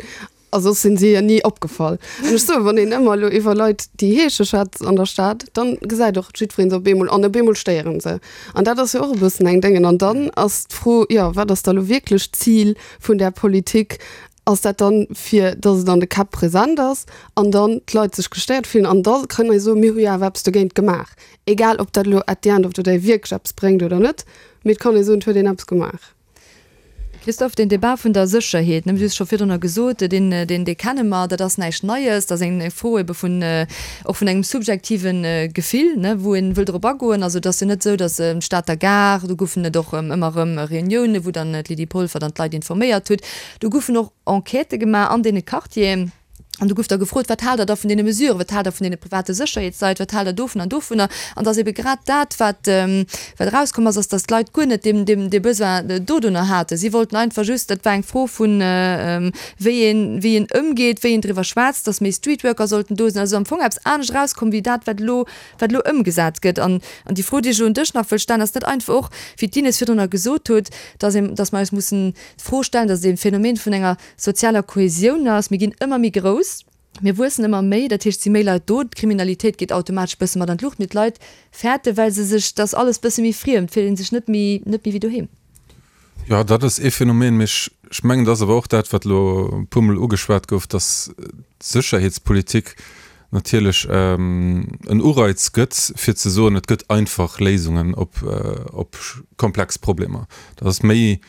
A soss sinn si hir ni opgefall. An ech soen, wann een ëmmer elo iwwer Leit, déi heesche schwätzt an der Stad, dann gesäit och jiddweree se op eemol an op eemol stéiere se. An dat ass jo och e bëssen eng Déngen. An dann ass d'Fro, jo, wat ass da lo wierklech d'Zil vun där Politik? Ass dat dann, fir datt et an de Käpp present ass an dann d'Leit sech gestéiert fillen an da kënnen mer soen, mir hu jo awer eppes dogéint gemaach. Egal ob dat elo at the end of the day wierklech eppes bréngt oder net, mee et kann ee soen, et huet een eppes gemaach. Christophe, deen Débat vun der Sécherheet, ne, du hues scho virdrunner gesot, deen, deen, dee kenne mer, dat ass näischt Neies, dat ass eng Fro ebe vun, och vun engem subjektive Gefill, ne, wou ee wëll drop agoen. Also et ass jo net esou, datt d'Stater Gare, do goufen et och ëmmer erëm Reuniounen, wou dann d'Lydie Polfer dann d'Leit informéiert huet, do goufen och Enquêtë gemaach an deene Quartieren. An do gouf da gefrot, Wat haalt Der da vun deene Mesuren? Wat haalt Der vun deene private Sécherheetsleit? Wat haalt Der dovun an dovunner? An dass ebe grad dat, wat, wat erauskomm ass, ass, dass d'Leit guer net deem, deem, dee Besoin dodunner haten. Si wollten einfach just, dat war eng Fro vun, wéi een, wéi een ëmgeet, wéi een driwwer schwätzt, dass méi Streetworker sollten do sinn. Also am Fong eppes anescht erauskomm wéi dat, wat elo, wat elo ëmgesat gëtt. An, an déi Fro, déi ech elo un dech nach wëll stellen, ass net einfach och, wéi d'Ines virdrunner gesot huet, dass een, dass mer eis mussen d'Fro stellen, dass et e Phänomen vun enger sozialer Kohäsioun ass. Mir ginn ëmmer méi grouss, mir wuessen ëmmer méi, dat heescht, et si méi Leit do, d'Kriminalitéit geet automatesch e bësse mat an d'Luucht, mee d'Leit fäerten, well se sech, et ass alles e bësse méi friem, et fillt ee sech net méi, net méi wéi doheem. Jo, dat ass ee Phänomen, mee ech, ech mengen, et ass awer och dat, wat elo e puermol ugeschwat gouf, dass d'Sécherheetspolitik natierlech en Ureiz gëtt, fir ze soen, et gëtt einfach Léisungen op, op komplex Problemer. Dat ass méi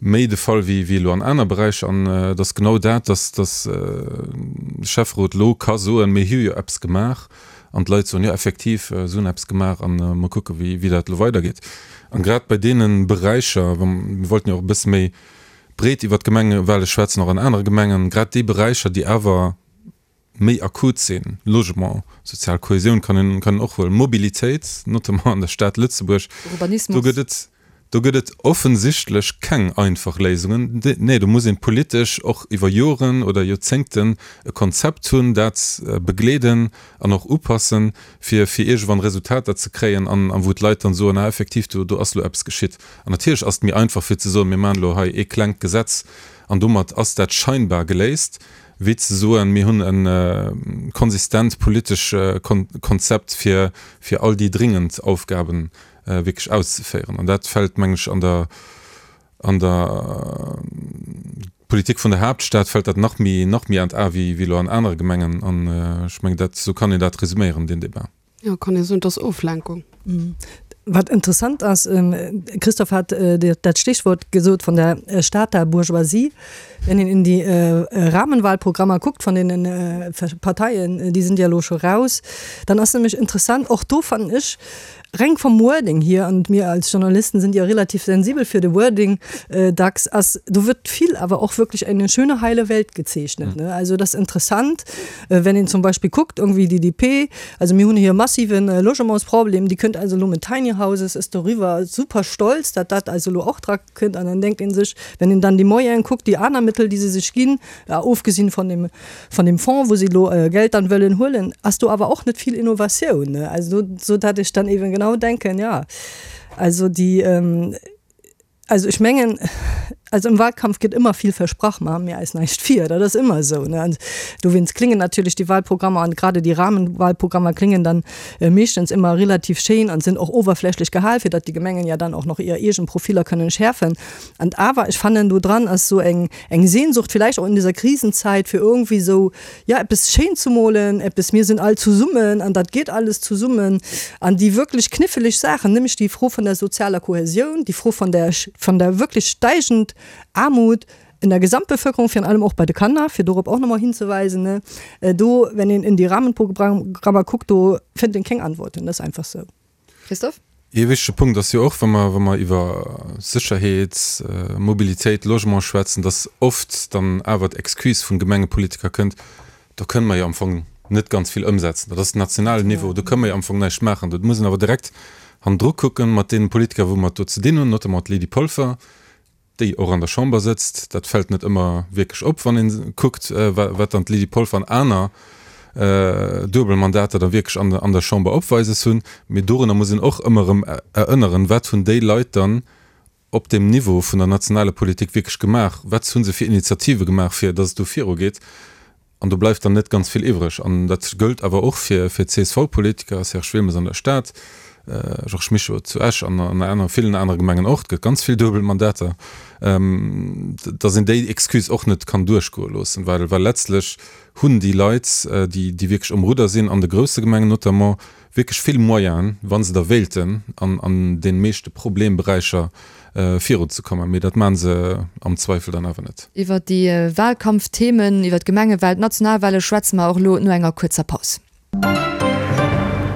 méi de Fall wéi wéi elo an aner Beräicher. An et ass genau dat, dass dass de Schäfferot elo ka soen, mir hu jo eppes gemaach. An d'Leit soen, jo effektiv, se hunn eppes gemaach a mer kucke wéi wéi dat elo weidergeet. An grad bei deene Beräicher, wa mir wollten jo och e bësse méi breet iwwert d'Gemengewale schwätzen, och an anere Gemengen, grad déi Beräicher, déi awer méi akut sinn, Logement, sozial Kohäsioun kann een, kann een och huelen, Mobilitéit, notamment an der Stad Lëtzebuerg, do gëtt et, do gëtt et offensichtlech keng einfach Léisungen. Nee, do muss een politesch och iwwer Joren oder Joerzéngten e Konzept hunn, dat begleeden an och upassen, fir, fir iergendwann Resultater ze kréien an, an wou d'Leit dann soen, ah effektiv, do, do ass elo eppes geschitt. An natierlech ass et méi einfach fir ze soen, mir maachen elo hei ee klengt Gesetz an domat ass dat scheinbar geléist, wéi ze soen, mir hunn e konsistent politesch Konzept, fir fir all déi dringend Aufgabe wierklech auszeféieren. An dat fält, mengen ech, an der an der Politik vun der Haaptstad fält dat nach méi nach méi an d'A wéi wéi elo an anere Gemengen. An ech mengen, dat esou kann een dat resüméieren, deen Débat. Jo, kann ee soen, et ass Oflenkung. Wat interessant ass, Christophe hat dat Stichwort gesot von der Stater Bourgeoisie. Wenn een in die Rahmenwahlprogrammer guckt von deenen Parteien, déi sind ja elo scho raus, dann ass nämlech interessant, och do fannen ech, reng vom Wording hier, und mir als Journalisten sind ja relativ sensibel für de Wording dacks, ass, do wird vill awer och wirklich eine schöne heile Welt gezeichnet, ne. Also dat ass interessant, wenn een zum Beispill kuckt, irgendwie déi DP, also mir hunn hier e massiven Logementsproblem, déi kënnt also elo mit Tiny Houses, ist doriwwer super stolz, datt dat also elo och dra kënnt, an dann denkt ee sech, wenn een dann déi Moyene kuckt, déi aner Mittel, déi se sech ginn, ofgesinn von dem, von dem Fonds, wou se elo Geld dann wëllen huelen, ass do awer och net vill Innovatioun, ne. Also do, sou dat ech dann eben genau denken, ja, also déi, Also ech mengen, also im Wahlkampf gëtt ëmmer vill versprach, maache mir eis näischt vir, dat ass ëmmer esou, ne. An dowéinst kléngen natierlech déi Wahlprogrammer an grade déi Rahmenwahlprogrammer kléngen dann meeschtens ëmmer relativ schéin an sinn och oberflächlech gehal, fir datt déi Gemengen ja dann och nach hir eegen Profiller kënnen schäerfen. An awer, ech fannen, do dran ass esou eng, eng Sehnsucht, vielleicht auch in dieser Krisenzeit, fir irgendwie esou, ja, eppes schéin ze molen, eppes, mir sinn all zesummen an dat geet alles zesummen. An déi wierklech kniffelig Saachen, nämlech déi Fro vun der sozialer Kohäsioun, déi Fro vun der, vun der wierklech steigend Aarmut in der Gesamtbevölkerung, virun allem och bei de Kanner, fir dorop och nach emol hinzeweisen, ne, do, wenn een in die Rahmenprogrammer kuckt, do fënnt een keng Antworten, dat ass einfach sou. Christophe? Ee wichtege Punkt ass jo och, wa mer, wa mer iwwer Sécherheet, Mobilitéit, Logement schwätzen, dass oft dann awer d'Excuse vun Gemengepolitiker kënnt, do kënne mer jo am Fong net ganz vill ëmsetzen. Dat ass den nationalen Niveau, do kënne mer jo am Fong näischt maachen. Do muss een awer direkt hannendru kucken mat deene Politiker, wou mer et do ze dinn hunn, notamment d'Lydie Polfer, déi och an der Chamber sëtzt. Dat fält net ëmmer wierklech op, wann ee kuckt, wat dann d'Lydie Polfer an aner duebel Mandater da wierklech an der Chamber opweises hunn. Mee dorunner muss een och ëmmer erëm erënneren, Wat hunn déi Leit dann op deem Niveau vun der nationaler Politik wierklech gemaach? Wat hu se fir Initiative gemaach, fir datt et do virugeet? An do bleift dann net ganz vill iwwreg. An dat gëllt awer och fir d'CSV-Politiker, Serge Wilmes an der Stad, Georges Mischo zu Esch an an aner, villen anere Gemengen och. Et gëtt ganz vill duebel Mandater, datt een déi Excuse och net kann duerchgoe loossen, well well letztlech hunn déi Leit, déi déi wierklech um Rudder sinn, an de grousse Gemengen notamment, wierklech vill Moyenen, wa se da wéilten, an an de meeschte Problemberäicher virunzekommen. Mee dat maache se am Zweifel dann awer net. Iwwer déi Wahlkampfthemen, iwwer d'Gemengewahlen, d'Nationalwahle schwätze mer och elo no enger kuerzer Paus.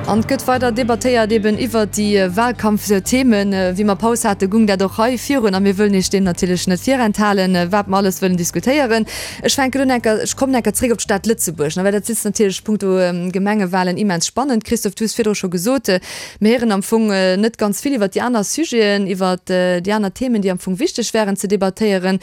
An et gëtt weider debattéiert eben iwwer déi Wahlkampfthemen. Wéi mer Paus hate gung dat och hei virun a mir wëllen Iech deem natierlech net virenthalen, wat mer alles wëllen diskutéieren. Ech fänken un enker, ech kommen enker zréck op d'Stad Lëtzebuerg, well dat sitzt natierlech punkto Gemengewahlen immens spannend. Christophe, du hues virdru scho gesot, Mir héieren am Fong net ganz vill iwwert déi aner Sujeten, iwwert déi aner Themen, déi am Fong wichteg wären ze debattéieren.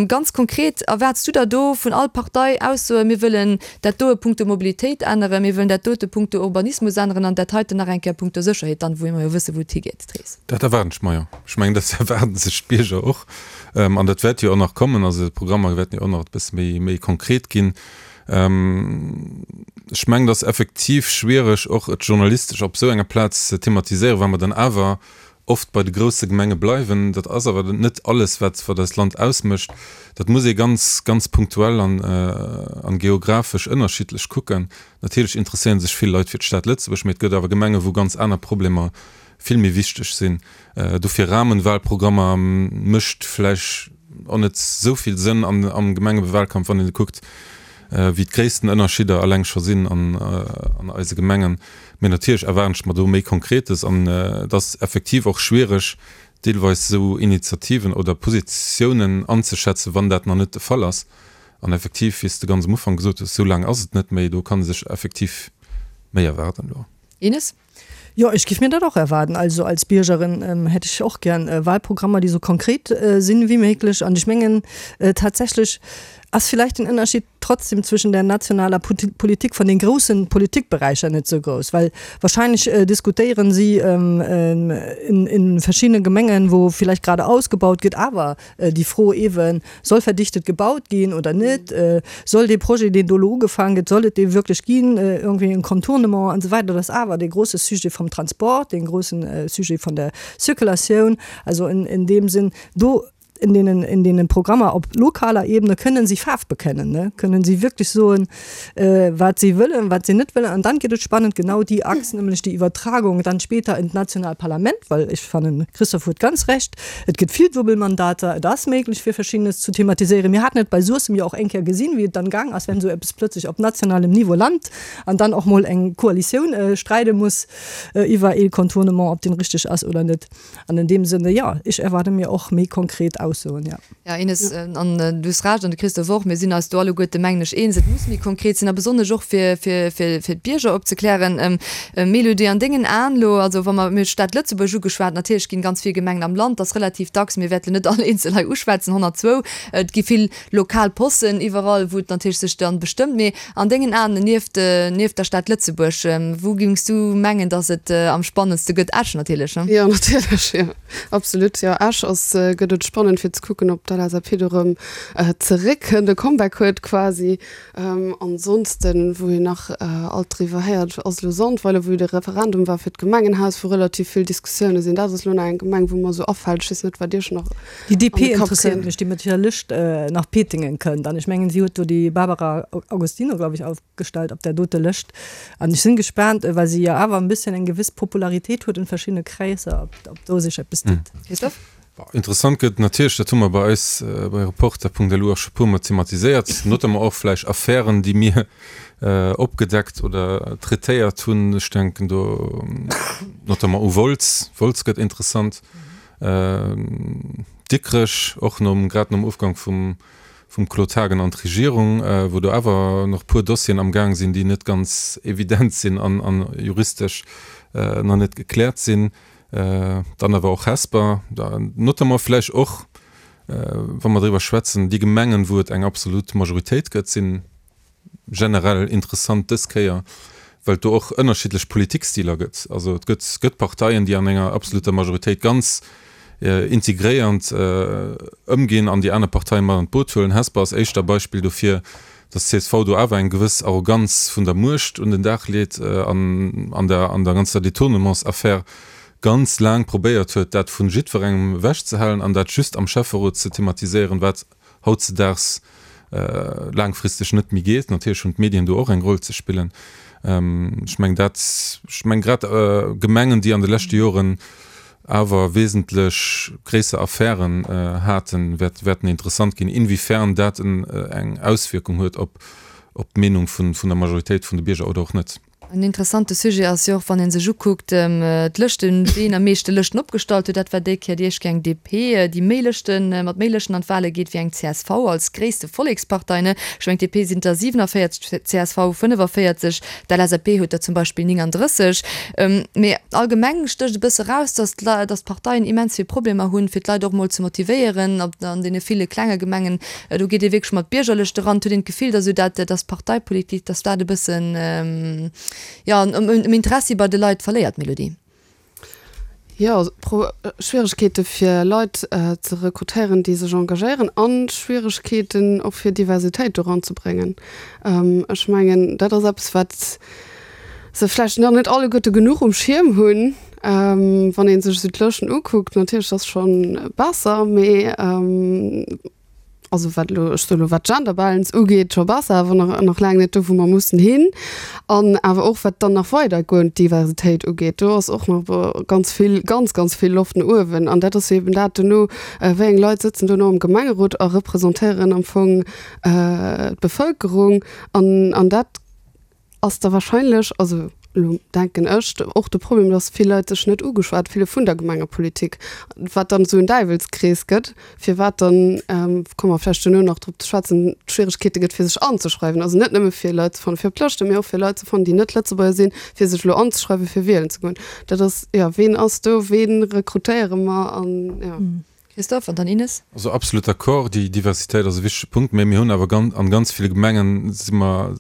Ganz konkret, erwaarts du der do vun all Partei Aussoen, mir wëllen dat doe punkto Mobilitéit änneren, mir wëllen dat dote punkto Urbanismus änneren an dat heiten nach eng Kéier punkto Sécherheet, dann, wou mer jo wëssen, wou et higeet, d'Rees? Dat erwaarden ech mer, jo. Ech mengen, dat erwaarde sech d'Bierger och. An dat wäert jo och nach kommen. Also d'Programmer wäerten jo och nach e bësse méi konkret ginn. Ech mengen, et ass effektiv schwiereg, och et journalistesch op esou enger Plaz ze thematiséieren, well mer dann awer oft bei de grousse Gemenge bleiwen. Dat ass awer net alles, wat wat eist Land ausmécht. Dat muss ee ganz, ganz punktuell an an geographesch ënnerschiddlech kucken. Natierlech interesséiere sech vill Leit fir d'Stad Lëtzebuerg, mee et gëtt awer Gemenge wou ganz aner Problemer vill méi wichteg sinn. Dofir Rahmenwahlprogrammer mécht vläicht och net esou vill Sënn am Gemengewahlkampf, wann een kuckt, wéi d'gréissten Ënnerschidder eleng scho sinn an eise Gemengen. Mee natierlech erwaarden ech mer do méi Konkretes an et ass effektiv och schwiereg, deelweis esou Initiativen oder Positiounen anzeschätzen, wann dat nach net de Fall ass. An effektiv, wéi s de ganz am Ufank gesot hues, esou laang ass et net méi, do kann ee sech effektiv méi erwaarden elo. Ines? Jo, ech giff mir dat och erwaarden. Also als Biergerin hätt ech och gären Wahlprogrammer, déi sou konkret sinn wéi méiglech. An ech mengen tatsächlech ass vielleicht den Ënnerschied trotzdem zwischen der nationaler Politik von den großen Politikbereicher net sou grouss, well wahrscheinlech diskutéieren si in verschiedene Gemengen, wou vielleicht gerade ausgebaut gëtt, awer déi Fro eeben, Soll verdichtet gebaut ginn oder net? Soll dee Projet, deen do elo ugefaangen gëtt, soll et dee wierklech ginn, irgendwie en Contournement an esou weider? Dat ass awer dee grosse Sujet vum Transport, dee grossen Sujet vun der Circulatioun. Also in deem Sinn, do in deenen, in deenen Programmer op lokaler Ebene kënnen si Faarf bekennen, ne, kënnen si wierklech soen, wat si wëllen, wat si net wëllen. An dann gëtt et spannend, genau déi Achs, nämlech déi Iwwertragung dann später in d'nationaalt Parlament, well ech fannen, Christophe huet ganz Recht, Et gëtt vill Duebelmandater, et ass méiglech fir Verschiddenes zu thematiséieren. Mir haten et bei Suessem jo och eng Kéier gesinn, wéi et dann gaang ass, wenn esou eppes plötzlech op nationalem Niveau lant an dann och mol eng Koalitioun streide muss iwwer ee Contournement, ob deen richteg ass oder net. An in deem Sënne, jo, ech erwaarde mir och méi konkret Aussoen, jo. Jo, Ines, an du hues Recht, an de Christophe och, mir sinn eis do alleguerte, mengen ech, eens, et muss méi konkret sinn a besonnesch och fir, fir, fir, fir d'Bierger opzeklären. Mélodie, an dengen Aen elo, also wa mer, mir hunn d'Stad Lëtzebuerg ugeschwat, natierlech ginn ganz vill Gemengen am Land, ass relativ dacks, mir wäerten net all eenzel hei uschwätzen, 102, et gi vill lokal Possen iwwerall, wou et natierlech sech dann bestëmmt, mee an dengen Aen, nieft, nieft der Stad Lëtzebuerg, wou géings du mengen, datt et am spannendste gëtt? Esch natierlech, ne? Jo, natierlech, jo. Absolut, jo. Esch ass, gëtt et spannend fir ze kucken, ob d'LSAP do erëm zeréckkënnt, e Comeback huet quasi. Ansonsten, wou een nach alt driwwer héiert, ass elo Sandweiler, wou jo de Referendum war fir d'Gemengenhaus, wou relativ vill Diskussioune sinn. Dat ass elo nach eng Gemeng, wou mer esou afält. Ech weess net, wat Iech nach Déi DP interesséiert mech, déi mat hirer Lëscht nach Pétingen kënnt. An ech mengen, si huet do déi Barbara Agostino, glaub ich, aufgestellt op där dote Lëscht. An ech sinn gespaant, well si jo awer en bësschen eng gewiss Popularitéit huet en verschiddene Kräisser, ob do sech eppes deet. Christophe? Interessant gëtt natierlech, dat hu mer bei eis bei Reporter.lu och scho puermol thematiséiert, notamment och vläicht Affären, déi mir opgedeckt oder traitéiert hunn. Ech denken do notamment u Wolz. Wolz gëtt interessant. Dikrech och nom, grad nom Ofgang vum. Vum Claude Haagen an d'Regierung, wou do awer nach puer Dossieren am Gaang sinn, déi net ganz evident sinn an juristesch nach net gekläert sinn. Dann awer och Hesper, notamment vläicht och, wa mer driwwer schwätzen, déi Gemengen, wou et eng absolut Majoritéit gëtt, sinn generell interessant dës Kéier, well et do och ënnerschiddlech Politikstiler gëtt. Also et gëtt gëtt Parteien, déi an enger absoluter Majoritéit ganz integréiernd ëmginn an déi aner Parteien mat an d'Boot huelen. Hesper ass éischter Beispill dofir, datt csv do awer eng gewëss Arroganz vun der Muecht un den Dag leet an an der an der ganzer Détournementsaffär ganz laang probéiert huet, dat vu jiddwerengem ewechzehalen an dat just am Schäfferot ze thematiséieren, wat hautzedaags laangfristeg net méi geet. Natierlech hunn d'Medien do och eng Roll ze spillen. Ech mengen dat, ech mengen grad Gemengen, déi an de leschte Joren awer wesentlech gréisser Affären haten, wäerten interessant ginn, inwiefern dat eng Auswierkung huet op d'Meenung vun der Majoritéit vun de Bierger oder och net. En interessante Sujet ass jo och, wann ee sech ukuckt, d'Lëschten, ween am meeschte Lëschten opgestallt huet. Dat war déi Kéier déi éischt Kéier eng DP, déi méi Lëschten, mat méi Lëschten an d'Wale geet wéi eng csv als gréisste Vollekspartei. Ech mengen, d'DP sinn der 47, d'CSV 45, d'LSAP huet der zum Beispill 39. Mee allgemeng stécht e bësse raus, datt d'Parteien immens vill Problemer hunn, fir d'Leit och mol ze motivéieren an deene ville klenge Gemengen. Do geet ee wierklech mat Biergerlëschte eran. Et huet een d'Gefill, datt esou dat, datt d'Parteipolitik, datt dat e bëssen, jo, um Interessi bei de Leit verléiert. Mélodie. Jo, Schwieregkeete fir Leit ze rekrutéieren, déi sech engagéieren a Schwieregkeeten och fir Diversitéit do eranzebréngen. Ech mengen, dat ass eppes, wat se vläicht nach net alleguerte genuch um Schierm hunn. Wann ee sech esou d'Lëschten ukuckt, natierlech ass scho besser, mee also wat elo, ech soe elo wat d'Gender Balance ugeet, scho besser, awer nach, nach laang net do wou mer mussen hin. An awer och wat dann nach weidergoend Diversitéit ugeet, do ass och nach ganz vill, ganz, ganz vill Loft no uewen. An dat ass jo eben dat duerno, wéi eng Leit sëtzen duerno am Gemengerot a representéieren am Fong d'Bevëlkerung. An, an dat ass da wahrscheinlech, also elo denken ech, och de Problem, dass vill Leit sech net ugeschwat fille vun der Gemengepolitik, wat dann esou en Däiwelskrees gëtt, firwat dann, komme mer vläicht duerno nach drop ze schwätzen, d'Schwieregkeete gëtt fir sech anzeschreiwen, also net nëmme fir Leit ze fannen fir op d'Lëschten, mee och fir Leit ze fannen, déi net Lëtzebuerger sinn, fir sech elo anzeschreiwen, fir wielen ze goen. Dat ass, jo, ween ass do, wee rekrutéiere mer an, jo. Christophe, an dann Ines. Also absolut d'accord, déi Diversitéit ass e wichtege Punkt, mä mir hunn awer ganz, an ganz ville Gemengen si mer,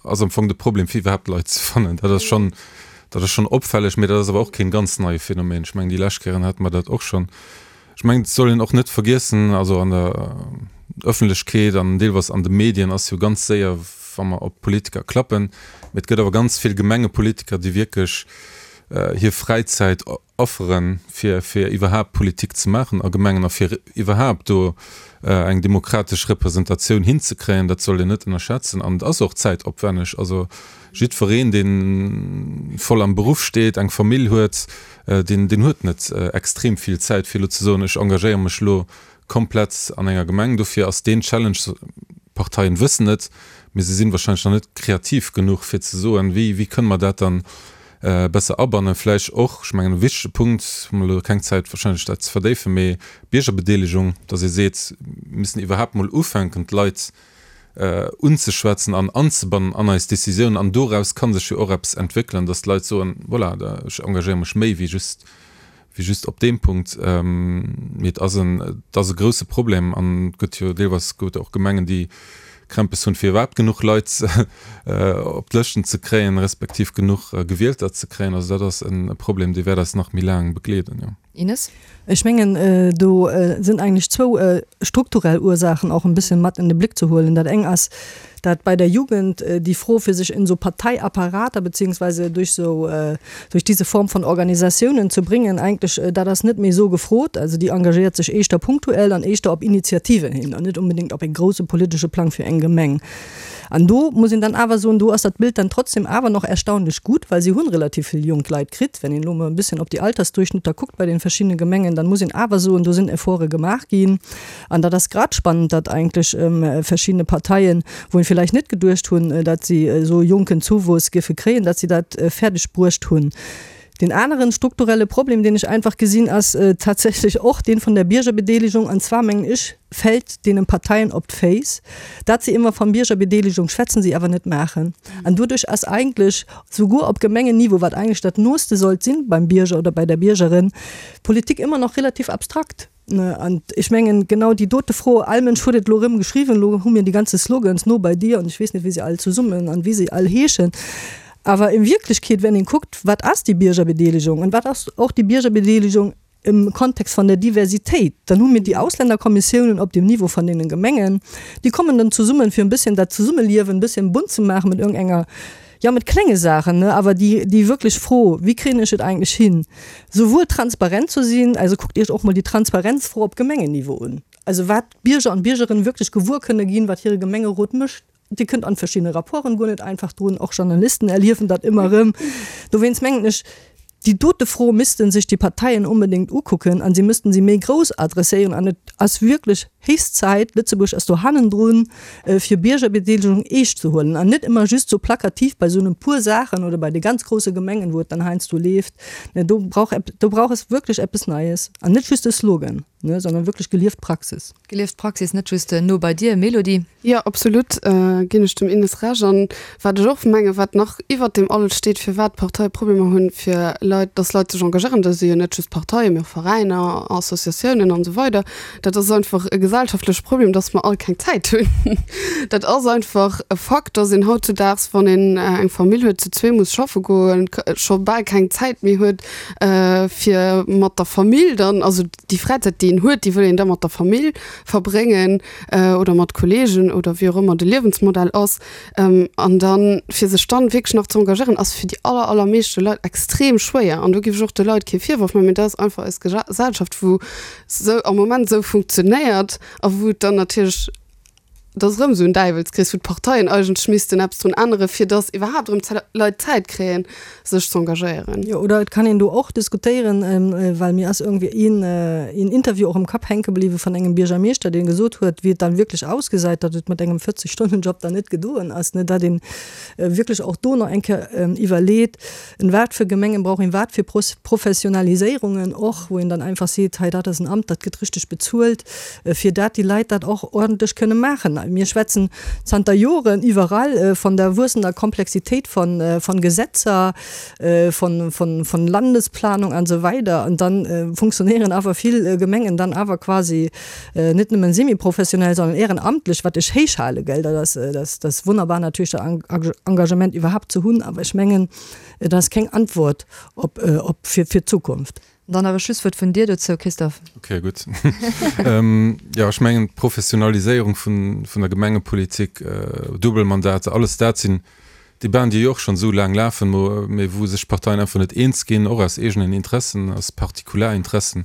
ass am Fong de Problem fir iwwerhaapt Leit ze fannen. Dat ass schonn, dat ass schonn opfälleg, mä dat ass awer och keen ganz neie Phänomen. Ech mengen déi lescht Kéieren hate mer dat och schonn. Ech mengen et soll een och net vergiessen, also an der Öffentlechkeet an deelweis an de Medien ass jo ganz séier, wa mer op Politiker klappen, mä et gëtt awer ganz vill Gemengepolitiker, déi wierklech hir Fräizäit Afferen, fir fir iwwerhaapt Politik ze maachen a Gemengen a fir iwwerhaapt do eng demokratesch Representatioun hinzekréien, dat sollt een net ënnerschätzen. An et ass och zäitopwänneg. Also jiddwereen, dee voll am Beruff steet, eng Famill huet, deen deen huet net extrem vill Zäit, fir elo ze soen, ech engagéiere mech elo komplett an enger Gemeng. Dofir ass deen Challenge, d'Parteien wëssen et, mee se sinn wahrscheinlech nach net kreativ genuch, fir ze soen, wéi wéi kënne mer dat dann besser abannen. Vläicht och, ech mengen e wichtege Punkt, hu mer elo keng Zäit wahrscheinlech dat ze verdéifen, mee Biergerbedeelegung, dass ee seet, mir müssen iwwerhaapt mol ufänken d'Leit unzeschwätzen an anzebannen an eis Décisiounen an doraus ka sech jo och eppes entwéckelen, dass d'Leit soen, voilà, ech engagéiere mech méi wéi just wéi just op deem Punkt. Mee et ass en, et ass e grouse Problem an et gëtt jo deelweis gëtt och Gemengen, déi Krämpes hunn, fir iwwerhaapt genuch Leit op d'Lëschten ze kréien, respektiv genuch Gewielter ze kréien. Also dat ass e Problem, dee wäert eis nach méi laang begleeden, jo. Ines? Ech mengen, do sinn eigentlech zwou strukturell Ursaachen och en bësschen mat in de Blick ze huelen. Dat eng ass, dat bei der Jugend déi Fro fir sech in so Parteiapparater beziehungsweise durch so durch diese Form von Organisatiounen zu bringen, eigentlech dat ass net méi esou gefrot. Also déi engagéiert sech éischter punktuell an éischter op Initiativen hin an net unbedéngt op e grouse politesche Plang fir eng Gemeng. An do muss een dann awer soen, do ass dat Bild dann trotzdem awer noch erstaunlech gut, well si hunn relativ vill jonk Leit kritt. Wenn een elo emol e bësschen op déi Altersdurchschnitter kuckt bei den verschiddene Gemengen, dann muss een awer soen, do sinn Efforte gemaach ginn. An dat ass grad spannend, datt eigentlech verschiddene Parteien, wou een villäicht net geduecht hunn, datt si esou jonken Zouwuess géife kréien, datt si dat fäerdeg bruecht hunn. Deen aneren strukturelle Problem, deen ech einfach gesinn, ass tatsächlech och deen vun der Biergerbedeelegung. An zwar, mengen ech, fält deenen Parteien op d'Féiss, dat se ëmmer van Biergerbedeelegung schwätzen, se awer net maachen. An doduerch ass eigentlech souguer op Gemengenniveau, wat eigentlech dat Nooste sollt sinn beim Bierger oder bei der Biergerin, Politik ëmmer nach relativ abstrakt. An ech mengen, genau déi dote Fro, all Mënsch huet et elo erëm geschriwwen, elo hu mir déi ganze Slogans, no bei dir an ech weess net, wéi se all zesummen an wéi se all heeschen. Awer in Wierklechkeet, wenn een kuckt, wat ass déi Biergerbedeelegung an wat ass och déi Biergerbedeelegung im Kontext van der Diversitéit, dann hu mir déi Ausländerkommissiounen op dem Niveau van deenen Gemengen, déi kommen dann zesummen, fir en bësschen dat Zesummeliewen en bësschen bunt ze maachen mat iergendenger, jo, mat klenge Saachen, ne, awer déi, déi wierklech Fro, wéi kréien ech et eigentlech hin, souwuel transparent ze sinn, also kuckt Iech och mol déi Transparenzfro op Gemengenniveau un, also wat d'Bierger an d'Biergerinnen wierklech gewuer kënne ginn, wat hire Gemengerot mécht. Dir kënnt an verschiddene Rapporten guer net einfach drun, och Journalisten erliewen dat ëmmer erëm. Dowéinst mengen ech, déi dote Fro misste sech déi Parteien onbedéngt ukucken a si missten se méi grouss adresséieren. An et ass wierklech héchst Zäit, Lëtzebuerg ass do hannendrun, fir Biergerbedeelegung eescht ze huelen an net ëmmer just sou plakativ bei sou e puer Saachen oder bei de ganz grousse Gemengen, wou et dann heiansdo leeft. Do brauch, do brauch es wierklech eppes Neies an net just e Slogan. Ne, sondern wirklich gelieft Praxis. Gelieft Praxis, net just no bei dir, Mélodie. Jo, absolut ginn ech dem Ines Recht. An wat ech och mengen, wat nach iwwert deem alles steet, firwat d'Parteie Problemer hunn, fir Leit, dass Leit sech engagéieren, dat si jo net just Parteien, mee och Veräiner, Associatiounen an esou weider, dat ass einfach e gesellschaftleche Problem, dass mer all keng Zäit hunn. Dat ass einfach e Fakt, dass een hautzudaags, wann een eng Famill huet, zu zwee muss schaffe goen, scho bal keng Zäit méi huet, fir mat der Famill dann, also déi Fräizäit, déi een huet, déi wëll een da mat der Famill verbréngen oder mat Kolleegen oder wéi och ëmmer de Liewensmodell ass. An dann, fir sech dann wierklech nach ze engagéieren, ass fir déi aller, allermeeschte Leit extrem schwéier. An do géif ech och de Leit kee Virworf maachen, mee dat ass einfach eis Gesellschaft, wou sou am Moment esou funktionéiert a wou et dann natierlech, Et ass erëm esou en Däiwelskrees, wou d'Parteien eigentlech missten eppes drun änneren, fir datt iwwerhaapt erëm Leit Zäit kréien, sech z'engagéieren. Jo, oder et kann een do och diskutéieren, well mir ass iergendwéi een, een Interview och am Kapp hänke bliwwe vun engem Biergermeeschter, dee gesot huet, wéi et dann wierklech ausgesäit, datt et mat engem 40 Stonnen-Job dann net gedoen ass, ne, datt ee wierklech och do nach eng Kéier iwwerleet, En wat fir Gemengen brauch een wat fir Professionaliséierungen och, wou een dann einfach seet, hei dat ass en Amt, dat gëtt richteg bezuelt, fir dat déi Leit dat och ordentlech kënne maachen. Mir schwätzen zanter Joren iwwerall von der wuessender Komplexitéit von Gesetzer, von Landesplanung an esou weider an dann funktionéieren awer vill Gemengen dann awer quasi net nëmmen semi-professionell, sondern ehrenamtlech, wat ech héich hale, gell, dat ass, dat ass wonnerbar natierlech dat Engagement iwwerhaapt ze hunn, awer ech mengen, et ass keng Antwort op, op fir, fir d'Zukunft. Dann nach e Schlusswuert vun dir dozou, Christophe. Okay, gutt. Jo, ech mengen, d'Professionaliséierung vun, vun der Gemengepolitik, Duebelmandater, alles dat sinn Debaten, déi jo och schonn esou laang lafen, mee wou sech d'Parteien einfach net eens ginn, och aus eegenen Interessen, aus Partikularinteressen.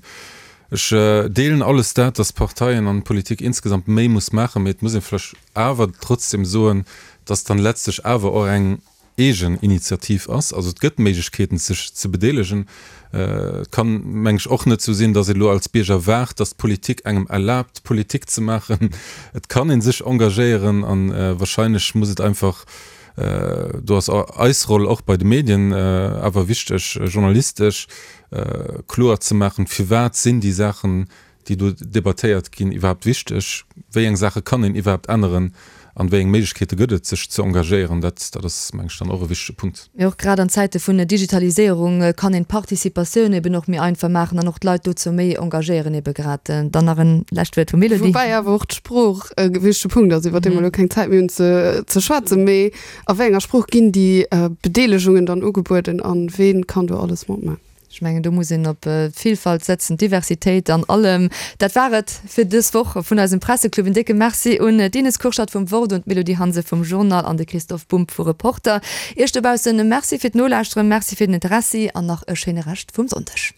Ech deelen alles dat, dass d'Parteien an d'Politik insgesamt méi muss maachen, mee et muss ee vläch awer trotzdem soen, dass dann letztlech awer och eng eegen Initiativ ass. Also et gëtt Méiglechkeeten, sech ze bedeelegen. Et kann, meng ech, och net esou sinn, dass ee lo als Bierger waart, dass d'Politik engem erlaabt, Politik ze maachen. Et kann ee sech engagéieren a wahrscheinlech muss et einfach, do ass eis Roll och bei de Medien awer wichteg, journalistesch kloer ze maachen, firwat sinn déi Saachen, déi do debattéiert ginn, iwwerhaapt wichteg? Wéi eng Saache kann een iwwerhaapt änneren an wéi eng Méiglechkeete gëtt et, sech ze engagéieren? Dat, dat ass, meng ech, dann och e wichtege Punkt. Mee och grad an Zäite vun Digitaliséierung kann een d'Participatioun eben och méi einfach maachen an och d'Leit dozou méi engagéieren ebe grad. Dann nach en lescht Wuert vum Elodie. Woubäi awer och d'Sprooch e wichtege Punkt ass, iwwer dee mer elo keng Zäit méi hunn ze ze schwätzen. Mee a wéi enger Sprooch ginn déi Bedeelegungen dann ugebueden a wee kann do alles matmaachen? Ech mengen, do muss een op d'Villfalt setzen, d'Diversitéit an allem. Dat war et fir dës Woch vun eisem Presseclub. En décke Merci un d'Ines Kurschat vum Wort, un d'Mélodie Hanse vum Journal an de Christoph Bumb vu Reporter. Iech dobaussen e Merci fir d'Nolauschteren, Merci fir den Interessi an nach e schéine Rescht vum Sonndeg.